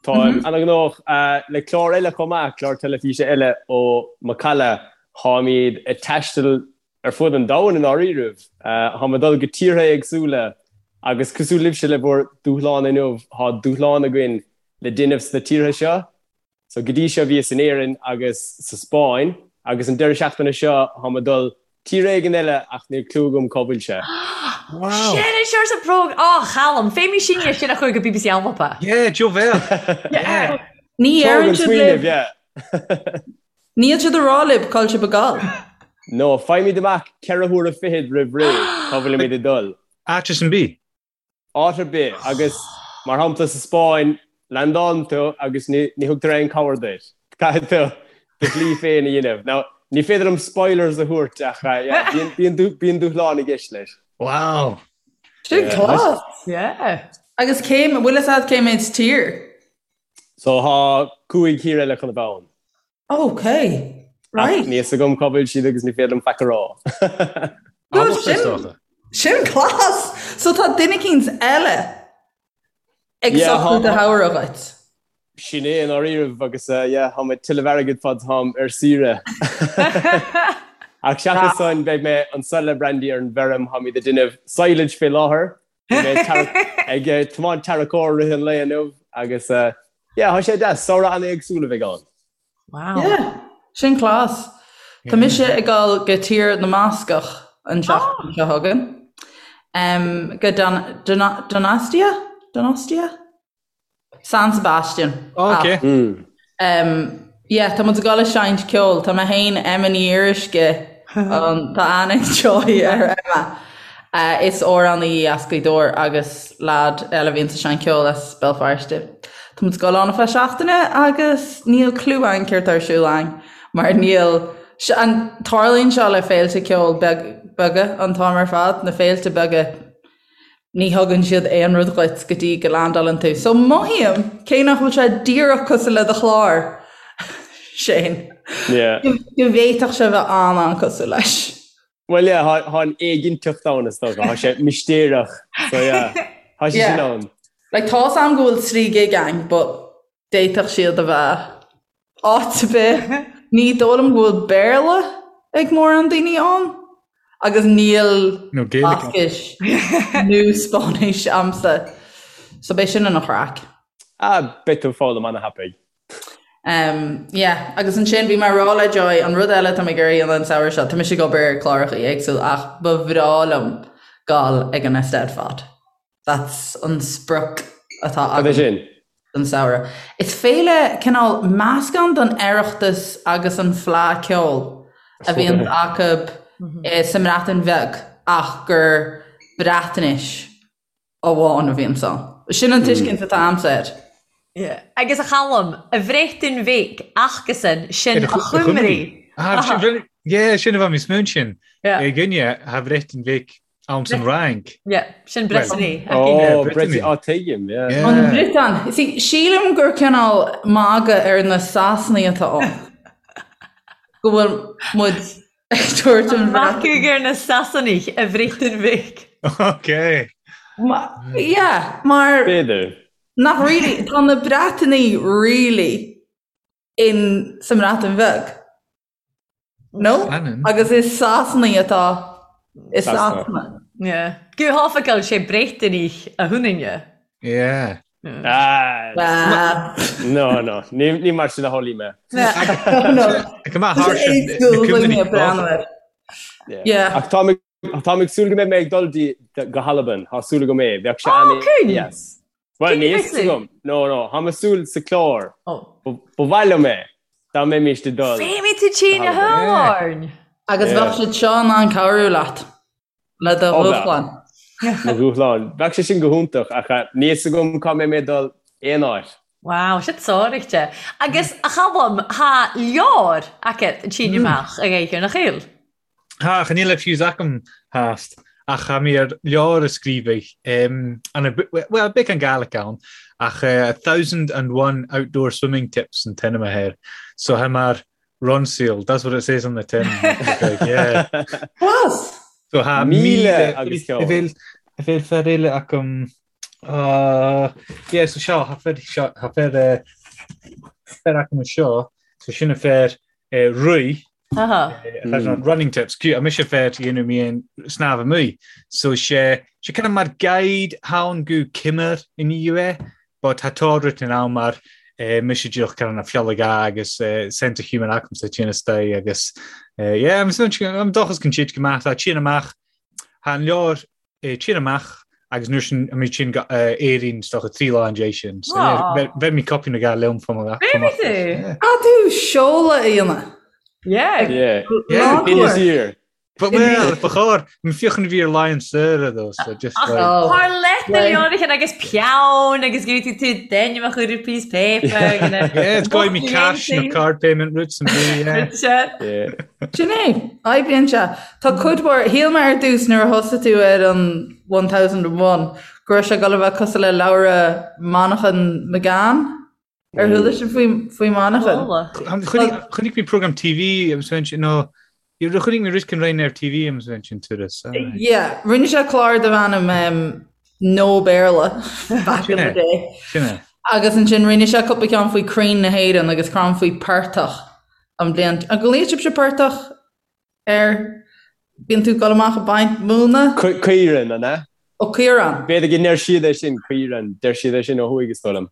Speaker 4: Táim ana-ghnóthach le clár eile chomh maith, clár teilifíse eile ó Macalla. Táimid ag taisteal ar fud an domhain i ndáiríribh. Táim ag dul go tíortha éagsúla agus cosúil libhse le bhur dúshlán inniu, tá dúshlán againn le déanamh sna tíortha seo. So go dtí seo bhíos in Éirinn agus sa Spáinn agus an deireadh seachtaine seo táim ag dul tír éigin eile ach níl clue agam cá bhfuil sé.
Speaker 5: Wow!
Speaker 3: Sin é seo sa bpróg Á Chalum, féimí sinne sin a chur go BBC Alba.
Speaker 5: Yeah, Joe Bheal.
Speaker 2: Yeah. Ní
Speaker 4: Tóg
Speaker 2: deireann
Speaker 4: an
Speaker 2: siad
Speaker 4: smaoineamh,
Speaker 2: libh.
Speaker 4: yeah.
Speaker 2: Níl siad ag rá libh cá bhfuil sibh ag gabháil.
Speaker 4: No, faighimid amach 4 huaire fichead roimh ré cá bhfuilimid ag dul.
Speaker 5: Áit ar bith.
Speaker 4: Áit ar bith, agus mar shampla sa Spáinn, landálann tú agus ní thugtar aon cabhair duit. Caithfidh tú do shlí féin a dhéanamh. Now, ní féidir liom spoilers a thabhairt ach yeah, bíonn dúshlán i gceist leis.
Speaker 5: Wow!
Speaker 2: Sin class!
Speaker 3: Yeah.
Speaker 2: Agus cé, bhfuil fhios agat cé méid tír?
Speaker 4: So tá 5 thír eile chun a bheith ann.
Speaker 2: Ok, right.
Speaker 4: Ach níl fhios agam cá bhfuil siad agus ní féidir liom faic a rá.
Speaker 2: No, sin, sin class! So tá duine eicínt eile ag socrú do shamhradh dhuit.
Speaker 4: Sin é i ndáiríribh agus yeah, táim ag tuilleamh airgid fad táim ar saoire. Ach seachas san beidh mé anso le Brandy ar an bhfeirm, táimid ag déanamh silage fé láthair. Bhí mé ag tiomáint tarracóir i rith an lae inniu agus yeah, tá sé deas, samhradh an-éagsúil a bheidh ann.
Speaker 3: Wow.
Speaker 2: Yeah, sin class. Tá mise ag dul go Tír na mBascach an tseachtain seo chugainn. Um, go Don, Don, Donostia? Donostia? San Sebastian.
Speaker 5: Oh, ok.
Speaker 2: Um, yeah, tá muid ag dul ag seinnt ceoil. Tá mé féin, Emma Ní Fhíoruisce, um, tá aithne ag Joy ar Emma. Uh, is amhránaí í as Gaoth Dobhair agus lad eile a bhíonn ag seinnt ceoil as Béal Feirste. Tá muid ag dul ann ar feadh seachtaine agus níl clue againn céard tá ar siúl againn mar níl an tarlaíonn seo le féilte ceoil beaga an t-am ar fad, na féilte beaga Ní thugann siad aon rud dhuit go dtí go landálann tú. So mothaím, cé nach bhfuil sé díreach cosúil le do chlár, Shane,
Speaker 4: Yeah.
Speaker 2: go bhféadfadh sé bheith an-an-cosúil leis.
Speaker 4: Well yeah, tá tá an éiginnteacht ann is dócha, tá sé mistéireach. So yeah, tá sé
Speaker 2: Yeah.
Speaker 4: sin ann.
Speaker 2: Like tá's a'm go bhfuil 3 gig ann, but d'fhéadfadh siad a bheith áit ar bith. Ní dóigh liom go bhfuil Béarla ag mórán daoine ann agus níl
Speaker 5: Nó Gaeilge.
Speaker 2: Bascais nó Spáinnis a'msa. So beidh sin ina chraic.
Speaker 4: Ah, beidh tú ag foghlaim ana-thapaidh.
Speaker 2: Um, yeah, agus ansin bhí mé ag rá le Joy, an rud eile tá mé ag iarraidh a dhéanamh an samhradh seo, tá mise ag obair ar chláracha éagsúil ach ba bhreá liom gabháil ag an Eisteddfod. That's an sprioc atá
Speaker 4: Cad é
Speaker 2: agam
Speaker 4: sin?
Speaker 2: don samhradh. Is féile cineál meascán den Oireachtas agus an Fleadh Ceoil. a bhíonn acu sa mBreatain Bheag ach gur Breatnais amháin a bhíonns ann. Sin an tuiscint atá a'msa air.
Speaker 3: Yeah. Agus a Chaluim, a Bhreatain Bheag acasan sin a Chymru.
Speaker 5: Yeah, sin a bheith níos mó sin. Againne, tha Bhreatain Bheag ann san Fhrainc.
Speaker 3: Yeah, sin Brittany.
Speaker 4: Oh, Brittany, oh, tuigim,
Speaker 2: yeah. An Bhriotáin. See, sílim gur cineál magadh ar na Sasanaigh atá ann. Go bhfuil muid ag tabhairt an
Speaker 3: Magadh ar na Sasanaigh a Bhreatain Bheag.
Speaker 5: Ok.
Speaker 2: Yeah, mar...
Speaker 4: B'fhéidir.
Speaker 2: Nach really, tá na Breatanaigh really in sa mBreatain Bheag. No? Agus is Sasanaigh atá i Sasana.
Speaker 3: Yeah. Go hoifigiúil sé Briotáinigh a thunainne.
Speaker 5: Yeah.
Speaker 4: Ah, no, no, ní mar sin a shamhlaigh mé.
Speaker 5: Go maith thar sin.
Speaker 4: Ach tá tá ag súil go mbeidh mé ag dul go hAlbain, tá súil agam é, bheadh sé an-deas. Bhuel, níl fhios agam. No, no, tá mé ag súil sa chlár. Ba mhaith liom é, dá mbeimis ag dul.
Speaker 3: Féimid tú tinn a thuáin.
Speaker 2: Agus bheadh siad seo in ann cabhrú leat le do dhúshlán.
Speaker 4: Mo dhúshlán. Bheadh sé sin go hiontach, ach níl fhios agam cá mbeidh mé ag dul aon áit.
Speaker 3: Wow, sin sáraíte. Agus a Chaluim, tha leabhar agat an tSín amach ag Éighear na Chill.
Speaker 5: Tha, ach níl a fhios agam theast, ach tha mi air leabhar a sgrìobhadh, bhuel, beagan Gàidhlig ann, ach 1001 Outdoor Swimming Tips an t-ainm a tha air. So tha mar Ronseal, that's what it says on the tin. Yeah.
Speaker 2: Class!
Speaker 5: So tha 1000 agus ceann. A bheil fear eile agam, yeah, so seo, tha fear, seo, tha fear, fear agam anseo, so sin a fear rith, Running tips, cute, mise fer dhéanamh mé an snámh amuigh. So sé sé kind of mar guide ann gu Cymr in é, but tá tá written ann mar eh, mise díreach kind of na fiolaga agus eh, sense of humour acamsa tine stay agus eh, yeah, I'm I'm dóchas go siad go maith tá tine amach Tá an leabhar tinn amach agus nuair sin an tinn Éirinn is dócha 3 lá an dé sin. So bheir mé copy na gal liom fá mo
Speaker 3: Bheir tú?
Speaker 2: Ah tú seoladh a dhéanamh.
Speaker 3: Yeah.
Speaker 4: Yeah. Yeah. Year.
Speaker 5: But well, ba chóir, m fiochan a bhí ar Lion Sir though, so just like...
Speaker 3: Thar leith na leabhrachain agus peann agus go tú tú d'ainm a chur ar piece paper.
Speaker 5: Yeah, it's going me cash no card payment routes and be, yeah.
Speaker 2: Yeah. Sin é, oibríonn sé. Tá cuid mhór, shíl mé ar dtús nuair a thosaigh tú ar an 1001 go raibh sé ag dul a bheith cosúil le leabhra Manchain McGann. Ar chuala sibh faoi, faoi Manchain?
Speaker 5: Chonaic mé program TV agus bheinn sin, nó chonaic mé rud éicint roinn ar TV agus bheinn sin turas.
Speaker 2: Yeah, rinne sé clár darbh ainm um, No Béarla back in the day.
Speaker 5: Sin é.
Speaker 2: Agus ansin rinne sé cúpla ceann faoi crainn na hÉireann agus crann faoi portach. An bliain. An nglaonn sibhse portach ar bíonn tú ag dul amach ag baint móna?
Speaker 4: Caorán, an ea?
Speaker 2: Ó, caorán.
Speaker 4: B'fhéidir go ndeir siad é sin, caorán. Deir siad é sin ó thuaidh, is dóigh liom.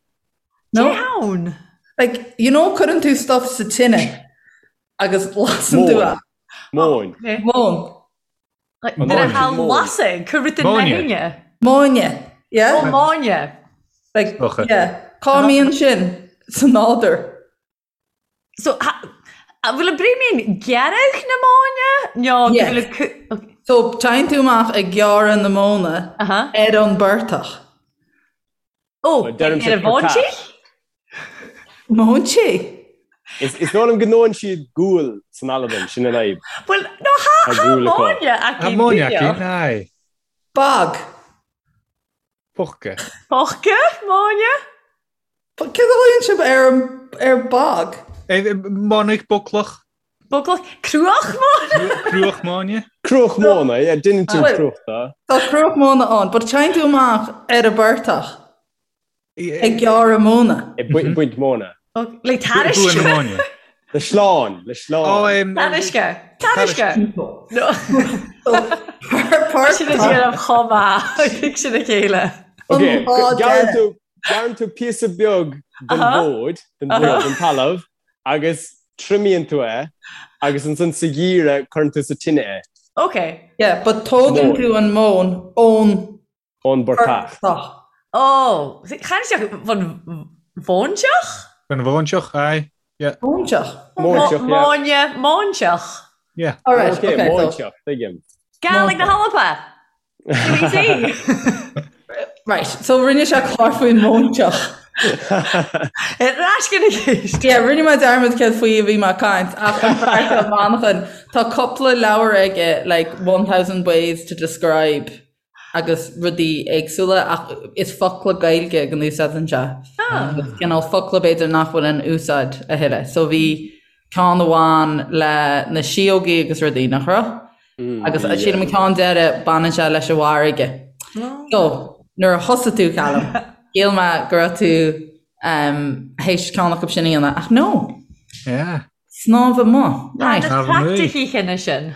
Speaker 2: No.
Speaker 3: Cé ann?
Speaker 2: Like, you know cuireann tú stuff sa tine agus lasann tú é.
Speaker 4: Móin.
Speaker 2: Móin.
Speaker 3: Nuair a tha lasadh, cuir rud in
Speaker 5: Móine.
Speaker 2: Móine, yeah?
Speaker 3: Ó, móine.
Speaker 2: Like, yeah. Cá mbíonn sin sa nádúr?
Speaker 3: So, an bhfuil an bréimín gearradh na móine? Nó go
Speaker 2: Yes.
Speaker 3: bhfuil an cu- ok.
Speaker 2: So, téann tú amach ag gearradh na móna
Speaker 3: Aha.
Speaker 2: ar an bportach.
Speaker 3: Ó,
Speaker 4: Well, deirim
Speaker 3: ar an
Speaker 4: sé
Speaker 3: bhóintí?
Speaker 4: portach.
Speaker 2: Móintí?
Speaker 4: Is is dóigh liom go ndóann siad gual san Albain, sin an fhadhb.
Speaker 3: Bhuel, no, tha
Speaker 4: Tá
Speaker 3: tha
Speaker 4: gual acu.
Speaker 3: móine acu
Speaker 5: Tá móine acu,
Speaker 3: díreach.
Speaker 5: aye.
Speaker 2: Bog.
Speaker 5: Pocca.
Speaker 3: Pocca, móine?
Speaker 2: Céard a ghlaonn sibh ar ar bog?
Speaker 5: Monach boclach.
Speaker 3: Boclach? Cruach móna?
Speaker 5: Cruach móine?
Speaker 4: Cruach móna, yeah, déanann tú cruach de.
Speaker 2: Tá cruach móna ann, but téann tú amach ar an bportach ag gearradh móna.
Speaker 4: Ag baint móna.
Speaker 3: Le
Speaker 5: tairisce.
Speaker 4: Le sleán, le sleán.
Speaker 3: Tarisce. Tarisce. Sin a déanamh chomh maith, ag sin a chéile.
Speaker 4: Ok, gearrann tú Gearrann tú píosa beag den bhfód, den bhfód, den talamh, agus triomaíonn tú é, agus ansan sa gheimhreadh cuireann tú sa tine é.
Speaker 3: Ok.
Speaker 2: Yeah, but tógann tú an mhóin ón
Speaker 4: Ón bportach.
Speaker 2: portach.
Speaker 3: Oh, chan isteach von mhóinteach?
Speaker 5: Von mhóinteach, aye. Yeah.
Speaker 2: Móinteach.
Speaker 4: Móinteach, yeah.
Speaker 3: Móine, móinteach.
Speaker 5: Yeah.
Speaker 2: All right,
Speaker 4: Okay,
Speaker 2: okay, so-
Speaker 4: Móinteach, tuigim.
Speaker 3: Gàidhlig na hAlba! Easy!
Speaker 2: Right, so rinne sé clár faoin móinteach.
Speaker 3: Ar ais go na ceist.
Speaker 2: Yeah, rinne mé dearmad céard faoi a bhí mé ag caint ach an fear seo Manchán, tá cúpla leabhar aige like 1000 ways to describe agus rudaí éagsúla ach is focla Gaeilge go n-úsáideann sé. Agus cineál focla b'fhéidir nach bhfuil in úsáid a thuilleadh. So bhí ceann amháin le na síógaí agus rudaí, nach raibh? Agus sílim an ceann deireadh baineann sé leis an bhfarraige. So nuair a thosaigh tú Callum, shíl mé go raibh tú théis ceann acu sin a dhéanamh ach no!
Speaker 5: Yeah.
Speaker 2: Snámh amuigh. Right.
Speaker 3: Tá na praiticií cheana sin.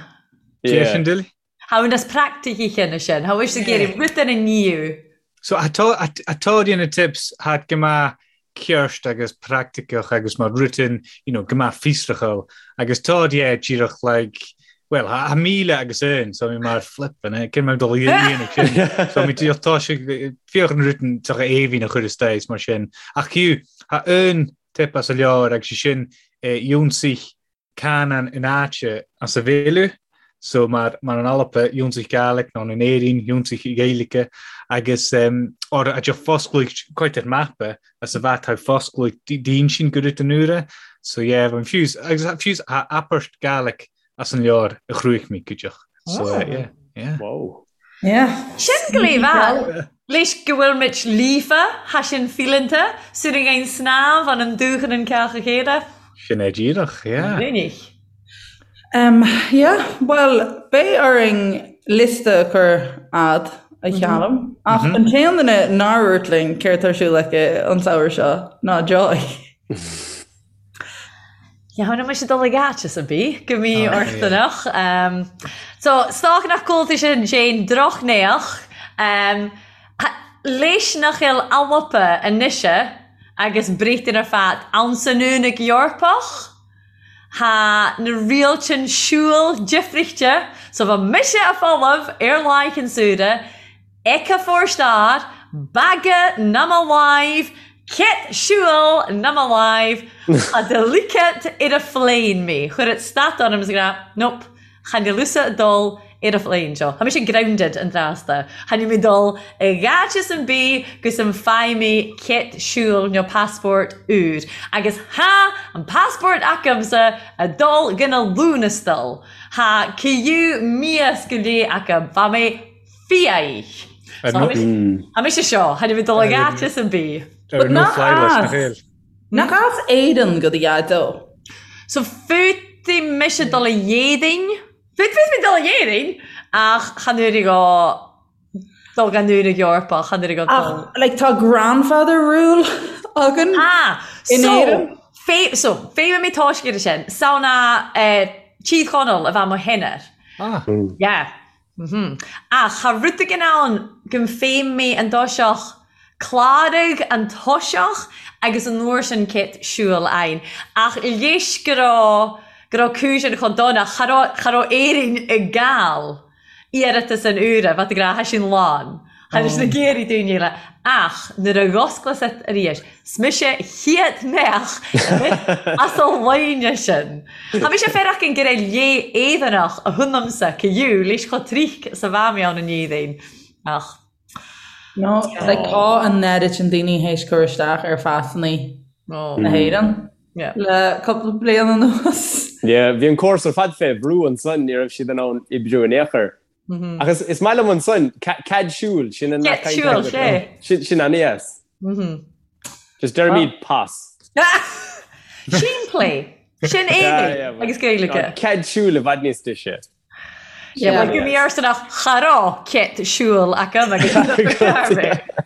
Speaker 5: Yeah. Sin Dilly?
Speaker 3: Tha nas praiticií cheana sin. Tha mhish ag iarraidh rud ar an níu.
Speaker 5: So atá na tips tha go maith ceart agus praiticiúch agus mar rutin, you know, go maith fiosrachal agus tá yeah díreach like well tha 1000 agus aon so mi mar flippin' eh cén mar dul a dhéanamh sin so mi díreach tá sé féach an rutin tá éibhín a chur isteach mar sin ach fiú tha aon tip as a leabhar agus sé sin eh, ionsaigh canann in áite as a bhéile, so mar mar an Alba, ionsaigh Gàidhlig, nó in Éirinn, ionsaigh Gaeilge, agus or a de fosclaigh quite ar mapa as a bheith tá fosclaigh d'insinn go rith an uaire, so yeah, bhí fiús, agus fiús a apairt Gàidhlig as an leabhar a chruaich mí cuideach, so yeah, yeah.
Speaker 4: Wow.
Speaker 2: Yeah.
Speaker 3: Sin go léamh Leis go bhfuil muid líofa, tha sin fíleanta, sinn ag ein snámh an an dúchan an ceach a chéile.
Speaker 5: Sin é díreach, yeah.
Speaker 3: Minic.
Speaker 2: Um, yeah, bhuel, beidh orainn liosta a chur a'd, a Chaluim. Ach an t-aon duine nár dhúirt linn céard tá ar siúl aici an samhradh seo ná Joy.
Speaker 3: Yeah, tha mise dul ag áit ar bith go mí-orthanach. So, 's dòcha nach gcuala thu sin, Shane, drochneach. Leis nach eil Alba a-nise agus Breatainn air fad ann san Aonach Eorpach, tha na rialtain siubhal difrichte, so bha mise a' folamh air laigh an saoire, Eke forstad, baga nam a láimh, cét siubhal nam a láimh, tha de ligeat ar a phléin mé. Chuir et stad orm is ag rá, Nope, chan eil thusa a' dul ar a phléin seo. Tha mise grounded an tráth sta. Chan eil mi dul ag áiteas an bith gus an bhfaighidh mé cét siubhal nó passport úr. Agus tha an passport acamsa a' dul gon a Lúnastal. Tha ciú míoss go léith acam. Bha mé Fiaich. Tha mise seo, chan eil mi dul ag áiteas an bith.
Speaker 5: Ar no fly list nach eil.
Speaker 2: Nach as Éirinn go do dhaideo?
Speaker 3: So féadfaidh mise dul a Éirinn, féadfaidh mé dul a Éirinn, ach chan uair go dul gan uair ag Eorpach, chan uair go dul.
Speaker 2: Ach like tá grandfather rule againn
Speaker 3: Ah,
Speaker 2: in
Speaker 3: so,
Speaker 2: Éirinn.
Speaker 3: fé, so, féadfaidh mé toisc ar sin, samhna eh, Tír Chonaill a bheith mo shinner.
Speaker 5: Ah.
Speaker 3: Yeah. Ach cha rud éigin ann go bhféim mé an toiseach, cláraigh an toiseach agus an uair sin cét siúil againn. Ach leis go raibh, go raibh cúis an chomh dona, cha raibh, cha raibh Éirinn ag gabháil iarratas an uaire, bheadh ag rá, tha sin lán. Tha leis na géirí daoine eile. Ach nuair a dh'osclas it arís, 's mise chéad mbeadh as an loine sin. Tha mise fearacht an go raibh lé Éireannach a thionamsa ciú leis chomh trích 's a bha mé ann in Éirinn. Ach.
Speaker 2: No, like tá an oiread sin daoine théis cur isteach ar phasannaí na hÉireann le cúpla bliain anuas.
Speaker 4: Yeah, bhí an córas ar fad fé bhrú ansan, ní raibh siad in ann oibriú in aon chor. Ach is maith liom ansan, cead siúil, sin an
Speaker 3: Cead siúil, sé.
Speaker 4: Sin an-dheas. Just deirimid pas.
Speaker 3: Simplí. Sin Éirinn agus Gaeilge.
Speaker 4: Cead siúil i bhfad níos deise.
Speaker 3: Yeah, well, go arsanach cha raibh cead siúil acu agus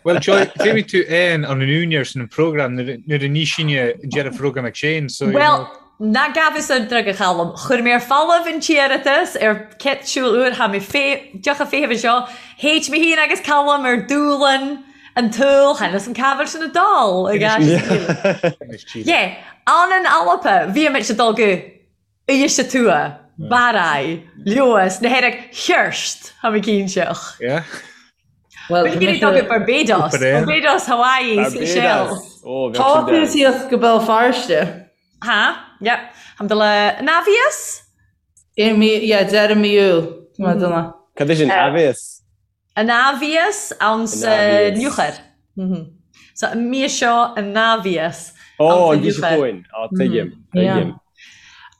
Speaker 5: Well, Joy, féadfaidh tú aon an úinéir san an program nuair a ní sinne an deireadh program ag Shane, so you
Speaker 3: Well,
Speaker 5: know.
Speaker 3: Ná gabhas an drug a Chaluim. Chuir mé ar falamh an t-iarratas ar cead siúil úr, tha mi deoch a feitheamh anseo. Théid mé féin agus Calum ar dúlann an tsaoil, chan eil 'fhios a'm ca bheil sin a' dul ag ais. Yeah, ann an Alba, bhí muid ag dul go Uibhist a Tuath, Barraigh, Leodhas, na hEirg Thirst, tha mi cinnteach.
Speaker 5: Yeah.
Speaker 2: Well,
Speaker 3: Bhí mé dul go Barbados, Barbados, Hawaii, Seychelles.
Speaker 2: Tá tú síos go Béal Feirste.
Speaker 3: Ha, yep. Tha mi dol a Navias?
Speaker 2: I mí, yeah, deireadh mí Iúil, tá mé dona.
Speaker 4: Cad é sin, aibhéas?
Speaker 3: An aibhéas ann sa Nuachar. So an mí seo an aibhéas
Speaker 4: Ó, an mhí seo chugainn. Á, tuigim, tuigim.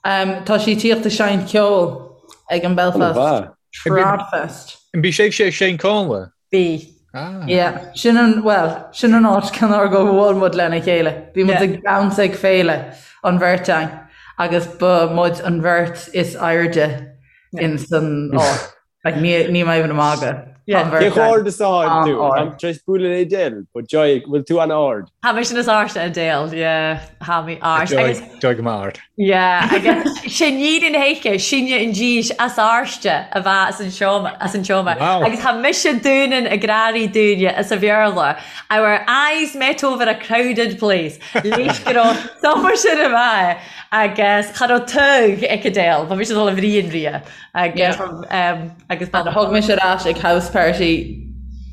Speaker 2: Tá sí tíocht ag seinnt ceoil ag an Belfast Tradfest.
Speaker 5: An bí sibhse ag seinnt Connla?
Speaker 3: Bí.
Speaker 2: Ah. Yeah, sin an, well, sin an áit cén uair go bhfuail muid lena chéile. Bhí muid ag damhsa ag féile an bheirt againn agus ba muid an bheirt is airde in san áit. Like, ní, ní mé even ag magadh.
Speaker 4: Yeah. Cé chomh ard is atá tú? Táim tar éis bualadh le Edel, but Joy, bhfuil tú an-ard?
Speaker 3: Tha mise nas airde Edel, yeah, tha mi ard.
Speaker 5: Joy, Joy go maith ard.
Speaker 3: Yeah, agus sin iad an héice, sinne an dís as airde a bheith as an seomra, as an seomra.
Speaker 5: Wow.
Speaker 3: Agus tha mise dúnan ag grearaí dúinne as a Bhéarla. Our eyes met over a crowded place. Leis go raibh summer sin a bheith agus cha raibh tug ag Edel, ba mise dul a bhriain ria. Agus, um,
Speaker 2: agus thug mise ar ais ag house party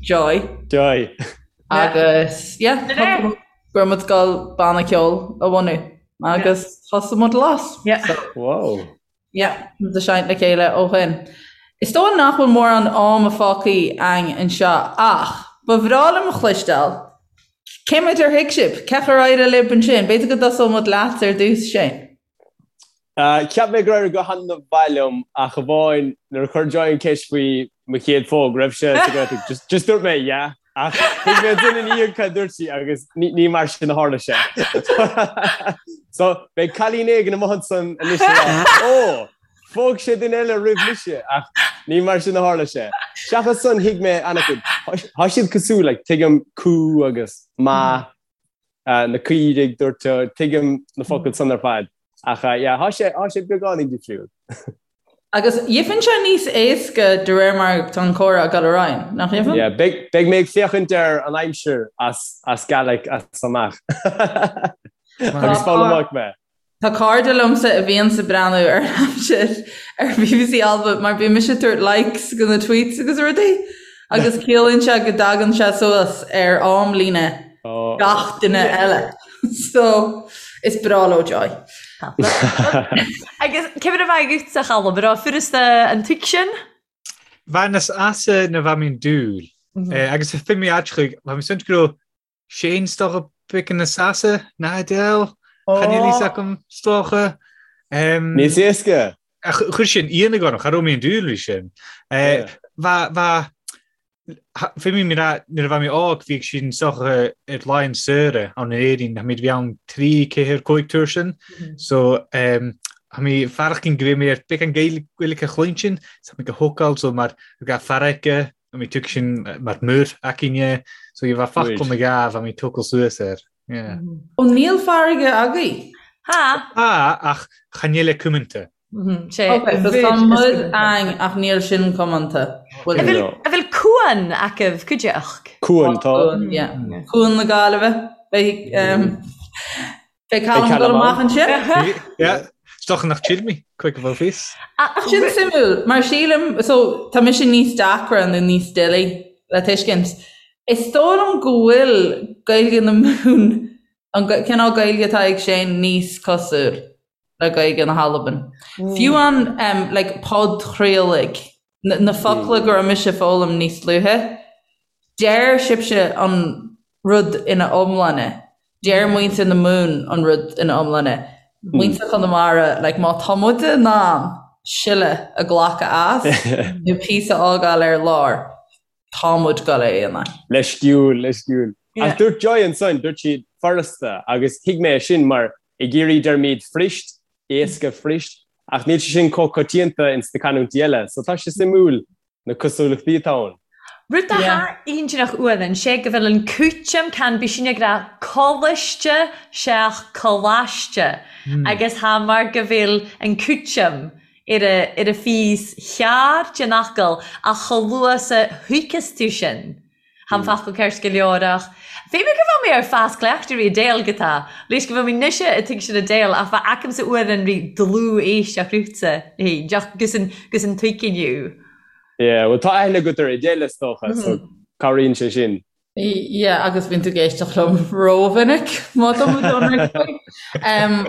Speaker 2: Joy.
Speaker 4: Joy.
Speaker 2: Agus, yeah, go raibh muid ag dul banna ceoil a bhunú agus thosaigh muid Las.
Speaker 4: Wow.
Speaker 2: Yeah, muid ag seinnt le chéile ó shin. Is dóigh nach bhfuil mórán ama fágtha againn anseo ach ba bhreá liom a chloisteáil cé méid ar thuig sibh? Cén chaoi ar éirigh libh ansin? B'fhéidir go dtosóidh muid leat ar dtús, Shane.
Speaker 4: Cheap mé gur éirigh go han-mhaith liom ach amháin nuair a chuir Joy an ceist faoi mo chéad phóg, raibh sé sa Ghaeltacht, just just dúirt mé yeah ach thuig mé ansin ina dhiaidh cad a dúirt sí agus ní ní mar sin a tharla sé. So beidh cailín éigin amuigh ansan anois ag rá ó, phóg sé duine eile roimh mise ach ní mar sin a tharla sé. Seachas san thuig mé an-chuid. Tá siad cosúil, like tuigim cú agus maith na caoirigh, dúirt tú, tuigim na focail san ar fad. Ach yeah, thá sé, thá sé beagáinín difriúil.
Speaker 2: Agus gheibheann sé níos éasca de réir mar tá an comhrá ag dul ar aghaidh, nach gheibheann?
Speaker 4: Yeah, beidh, beidh mé ag féachaint ar an aimsir as, as Gaelic as amach. Agus foghlaimeoidh mé.
Speaker 2: Tá cairde liomsa a bhíonns ag breathnú ar an aimsir ar bbc Alba mar bíonn mise ag tabhairt likes go na tweets agus rudaí agus ciallaíonn sé go dtagann sé suas ar amlíne gach duine eile. So is breá leo Joy.
Speaker 3: Agus cé mar a bha agatsa a Chaluim, an robh furasta an tuigsean?
Speaker 5: Bha nas easa na bha mi an dùil. Agus fir mi aiteach, bha mi suint go robh Shane 's dòcha beagan nas easa ná Edel, Chan eil fhios agam 's dòcha.
Speaker 4: Níos éasca!
Speaker 5: Chuir sin ionadh orm, cha robh mi an dùil ri sin. Bha, bha, fir mi nuair a bha mi òg bhíodh sin 's dòcha air laighean saoire ann in Éirinn, tha mi bhí ann trí, ceathair, cùig tuair sin. So tha mi faireachdan go bhfuil mi air beagan Gaeilge a chluinstin, tha mi go hócáil so mar ga farraige Tha mi tuigsean mar mur againne, so bha focal nó dhà bha mi tógáil suas air. Yeah.
Speaker 2: Ó níl farraige agaibh?
Speaker 3: Tha.
Speaker 5: Tha, ach chan eil e cumanta.
Speaker 3: Sé.
Speaker 2: Ok, so tá muir ann ach níl sin cumanta.
Speaker 3: An bhfuil an bhfuil cuan agaibh cuideachd?
Speaker 4: Cuan, tá.
Speaker 2: Cuan, yeah. Cuan na Gaillimhe. Beidh Beidh Callum ag dul amach ansin.
Speaker 5: Yeah. 's dòcha nach chill mi, cuig a bhfuil fios.
Speaker 2: Ach sin suimiúil, mar sílim, so tá mise níos deacra nó níos doiligh le tuiscint. Is dóigh liom go bhfuil Gaeilge na Mumhan, an cineál Gaeilge atá ag Shane níos cosúil le Gaeilge na hAlban. Fiú an, um, like, podchraoladh, na focla go raibh mise ag foghlaim níos luaithe, Deir sibhse an rud ina iomláine. Deir muintir na Mumhan an rud ina iomláine. Muintir Chonamara, like, má tá muid in ann siolla a ghlacadh as nó píosa a fhágáil ar lár, tá muid ag dul é a dhéanamh.
Speaker 4: Leisciúil, leisciúil. Ach dúirt Joy ansan, dúirt sí furasta agus thuig mé é sin mar i gCiarraí deirimid fuirist, éasca fuirist, ach níl sé sin chomh coitianta ins na canúintí eile, so tá sé suimiúil na cosúlachtaí atá ann.
Speaker 3: Rud atá iontach uainn sé go bhfuil an cúiteam can bí sin ag rá coláiste seach coláiste agus tha mar go bhfuil an cúiteam ar a ar a phíos chearr den fhocal ach chomh luath 's a thuigeas tú sin Tha an focal ceart go leor ach bhí mé go bhfuil mé ar fás cleachtaidh ri Edel go tá leis go bhfuil mé nise a tuigsean Edel ach bha agam-sa uairean ri dlúth-éisteacht riutsa fhéin deoch gus an gus an tuigean you.
Speaker 4: Yeah, well tá aithne agat ar Edel is dócha, so cabhraíonn sé sin.
Speaker 2: Yeah, agus bíonn tú ag éisteacht liom rómhinic má tá muid ionraic faoi.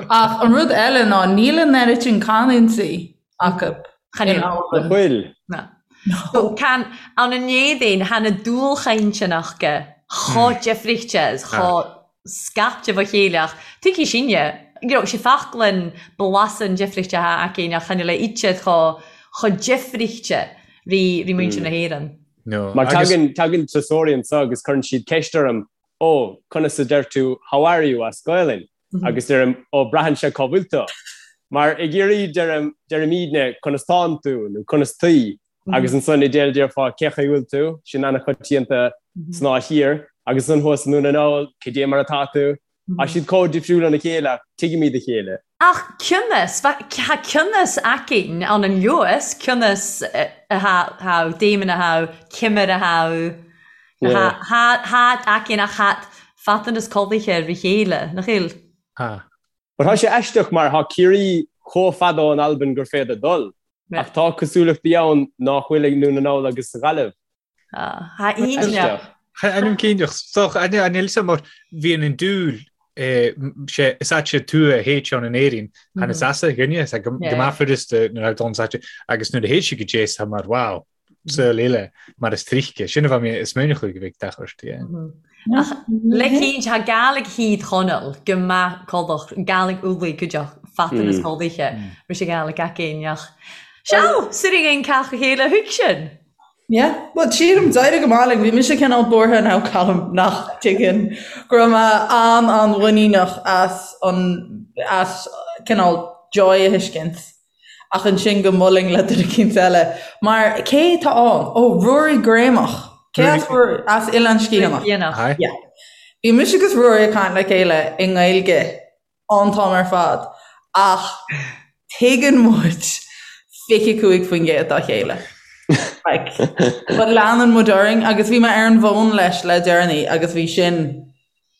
Speaker 2: Ach an rud eile ná níl an oiread sin canúintí. acu
Speaker 3: Chan
Speaker 2: in
Speaker 3: eil.
Speaker 2: Albain.
Speaker 4: Nach bhfuil?
Speaker 3: Na. So can ann an Éadaoin tha na dualchainteanna aca chomh difrichte is chomh scaipte fá chéile ach tuigfidh sinne, you know, 's e faclainn blasann difrichte atá againn ach chan eil a fhios chomh chomh difrichte ri ri muintir na hÉireann.
Speaker 5: No.
Speaker 4: Mar
Speaker 5: Agus
Speaker 4: tagann tagann turasóirí anseo agus cuireann siad ceist orm, Ó, conas a deir tú 'how are you' as Gaelainn? Agus deirim, Ó, braitheann sé cá bhfuil tú. Mar i gCiarraí deirim, deirimidne 'conas tánn tú' nó 'conas taoi' agus ansan i dTéil déarfá 'cé chaoi bhfuil tú', sin an-choitianta san dá thír, agus ansan thuas i nDún na nGall 'cad é mar atá tú'. Tá siad chomh difriúil óna chéile ach tuigimid a chéile.
Speaker 3: Ach cionnas, tá cionnas againn ann an Lewis, cionnas atá Damon atá, Cimir atá, Tha againn ach tha fadtanas codlaithe ri chéile, nach eil?
Speaker 5: Tha.
Speaker 4: But tá sé aisteach mar tá Ciarraí chomh fada ón Albain gur féidir dul, ach tá cosúlachtaí ann nach bhfuil ag nDún na nGall agus sa Ghaillimh.
Speaker 3: Tha iontach.
Speaker 5: Ainm cinnteach. Soch, an fhios a'm mar bhíonn an dúil sé is ait sé tú a théid ann in Éirinn chan is as a dhuine is go maith furasta nuair a dul sa agus nuair a théid sí go dé tá mar wow saol eile mar is tríce sin a bheith mé is minic go bhfuil deachairt yeah.
Speaker 3: Ach le cinnt tha Gàidhlig Thír Chonaill gu math codlach Gàidhlig Ulaidh cuideachd fadtanas codlaithe ris a Ghàidhlig againn ach Seal, suiridh ein cách a chéile thuig sin.
Speaker 2: Yeah, well sílim d'éirigh go maith linn, bhí mise cineál buartha now Colm nach dtuigeann go raibh mé an-an-mhuiníneach as an as cineál Joy a thuiscint ach ansin go mbuailfinn le duine eicínt eile mar cé tá ann? Ó Ruairí Greumach. Cé as Ruairí? As Oileán Sgitheanach.
Speaker 3: Sgitheanach.
Speaker 2: Yeah. Bhí mise agus Ruairí ag caint le chéile i nGaeilge an t-am ar fad ach tuigeann muid 25% dá chéile. Like, but leanann muid orainn agus bhí mé ar an bhfón leis le deireanaí agus bhí sin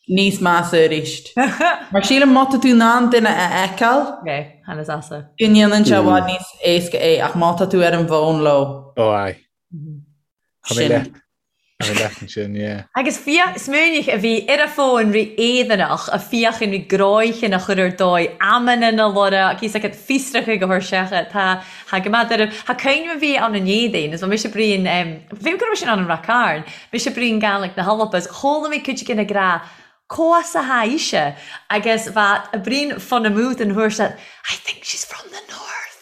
Speaker 2: níos measa arís. Mar sílim má tá tú in ann duine a fheiceáil,
Speaker 3: Okay, tha nas easa.
Speaker 2: go ndéanann sé i bhfad níos éasca é ach má tá tú ar an bhfón leo,
Speaker 5: Ó aye. Tá mé
Speaker 2: sin.
Speaker 5: leat. Tá mé leat ansin, yeah.
Speaker 3: Agus fiach, smaoinigh a bhí ar a fón ri éadaineach a fiachain ri gráicheann a chur ar dóigh amanna na lora cíos agat fiosracha go thuirseacha tá tha go maith ar tha cuimhne a bhí ann an éadain is bha mise bruíon bhí go raibh sin ann an Rath Cairn mise bruíon Gàidhlig na hAlba is chuala mé cuid de na grá Comhas a tha ise agus bha a bruíon fon amú den thuair seo I think she's from the north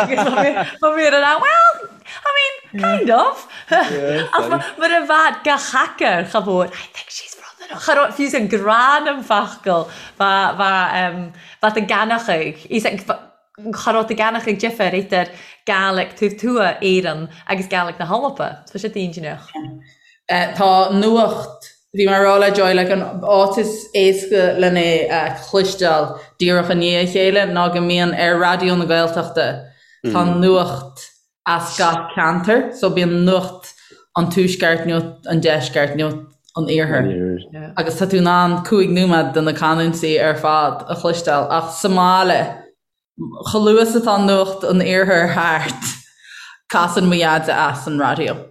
Speaker 3: agus bha mé ar an well I mean kind of ach mar a bha gach hacker cha mhór I think she's from the north cha raibh fiú an grán am facal bha bha bha ta ganachaidh Cha raibh ta ganachaidh difear idir Gàidhlig taobh tuath Éireann agus Gàidhlig na hAlba. Tá sé dainséarach.
Speaker 2: Tá nuacht, bhí mé ag rá le Joy, like an áit is éasca len é a chloisteáil díreach i ndiaidh a chéile ná go mbíonn ar Raidió na Gaeltachta, tá nuacht as gach ceantar, so bíonn nuacht an tuaisceart, nuacht an deisceart, nuacht an iarthair. Agus tá tú in ann 5 nóiméad de na canúintí ar fad a chloisteáil ach sa mbaile, chomh luath is atá nuacht an iarthair thart, casann mo dhaid as an raidió.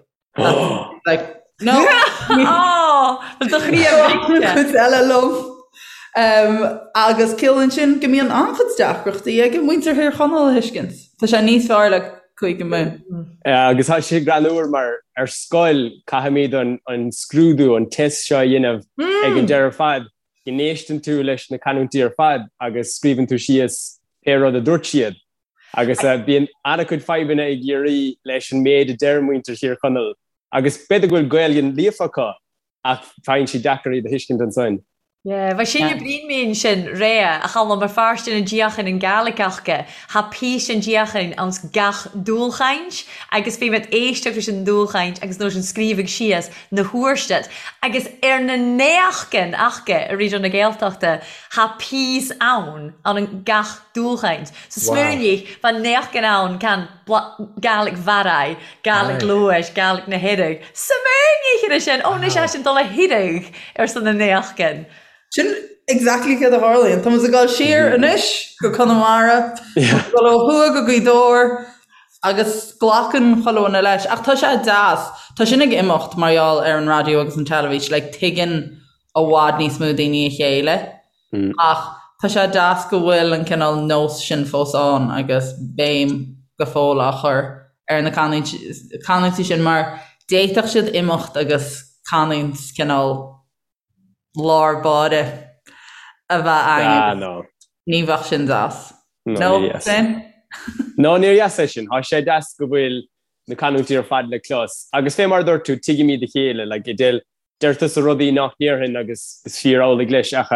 Speaker 2: Like, no!
Speaker 3: Ó, do chroí ar
Speaker 2: Cuid eile liom. Agus ciallaíonn sin go mbíonn an-chuid deacrachtaí ag muintir Thír Chonaill a thuiscint. Tá sé níos fearr le Cúige Mumhan.
Speaker 4: Agus tá sé greannmhar mar ar scoil caithfimid an scrúdú, an test seo a dhéanamh ag an deireadh ar fad, go n-éisteann tú leis na canúintí ar fad agus scríobhann tú síos pé rud a dúirt siad. Agus bíonn an-chuid fadhbanna i gCiarraí leis an méid a deir muintir Thír Chonaill agus b'fhéidir go bhfuil Gaeilge líofa acu ach faigheann siad deacair iad a thuiscint ansin.
Speaker 3: Yeah, bha sin a bruíon mi ansin rèa a Chaluim mar fàirstean an diachan an Gàidhlig aca, tha píosa an diachan anns gach dùlchaint agus bhí mé ag éisteacht leis an dùlchaint agus nóis an scríobhadh síos na huairstit agus ar na néachgan aca i Raidió na Gaeltachta tha píos ann ann an gach dùlchaint. So smaoinigh, bha néachgan ann can Gàidhlig Bharraigh, Gàidhlig Leodhais, Gàidhlig na hEireadh. Smaoinigh ar sin! Ó, anois é sin dul a hiarraidh ar son na néachgan.
Speaker 2: Sin exactly céard a tharlaíonn. Tá muid ag dul siar anois go Conamara, ag dul ó thuaidh go Gaoth Dobhair agus glacann chuile dhuine leis. Ach tá sé deas. Tá sin ag imeacht mar gheall ar an raidió agus an teilifís. Like, tuigeann i bhfad níos mó daoine a chéile. Ach. tá sé deas go bhfuil an cineál nós sin fós ann agus béim go fóill á chur ar na canúintí sin mar d'fhéadfadh siad imeacht agus canúint cineál lár báire a bheith againn
Speaker 4: agus
Speaker 2: ní bheadh sin deas. No,
Speaker 4: ní dheas. No, níor dheas é sin. Tá sé deas go bhfuil na canúintí ar fad le clos. Agus fé mar a dúirt tú, tuigimid a chéile, like, Edel, deir tusa rudaí nach ndéarfainn agus is fíor amhlaidh leis ach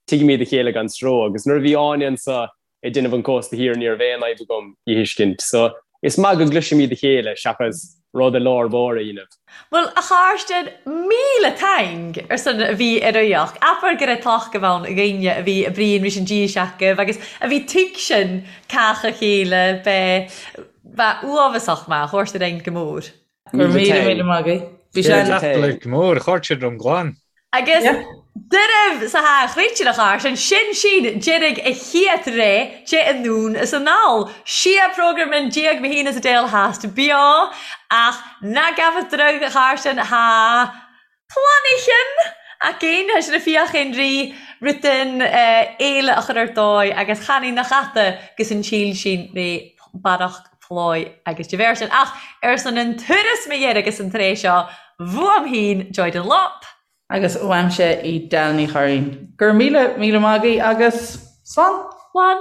Speaker 4: tuigimid a chéile gan stró. Agus nuair a bhí Áine anso ag déanamh an Cósta Thiar ní raibh aon fhadhb agam í a thuiscint. So, is maith go gcloisimid a chéile seachas rud i lár báire a dhéanamh.
Speaker 3: Bhuel, a chairde, 1000 taing ar son a bhí ar aíocht. Abair go raibh tláthach ann againne a bhí ag bruíon rís an díseach agus a bhí tuigsin cách a chéile bheith bheith uaibheasach maith, thabhairt ar aghaidh go mór.
Speaker 2: Go raibh míle míle maith agaibh.
Speaker 5: Bhí sé an. Go mór, chuir siad rón glan.
Speaker 3: Agus deireadh sa tha chréite a char sin, sin sin deiridh a chiat ré de anonn is anall. Sia program in diaidh mo shín is a déal theas beo ach ná gabhadh droigh a char sin tha Planaichean againn, tha sinn a' fiachain ri rudan eile a chur ar dóigh agus chan e nach ata gus an tsíl sin ré barrach pláigh agus de bharr sin. Ach ar son an turas mo dheireadh gus an tréith seo, bhuam fhìn Joy Dunlop.
Speaker 2: Agus uaimse Edel Ní Churraoin. Go raibh míle míle maith agaibh agus slán!
Speaker 3: Slán!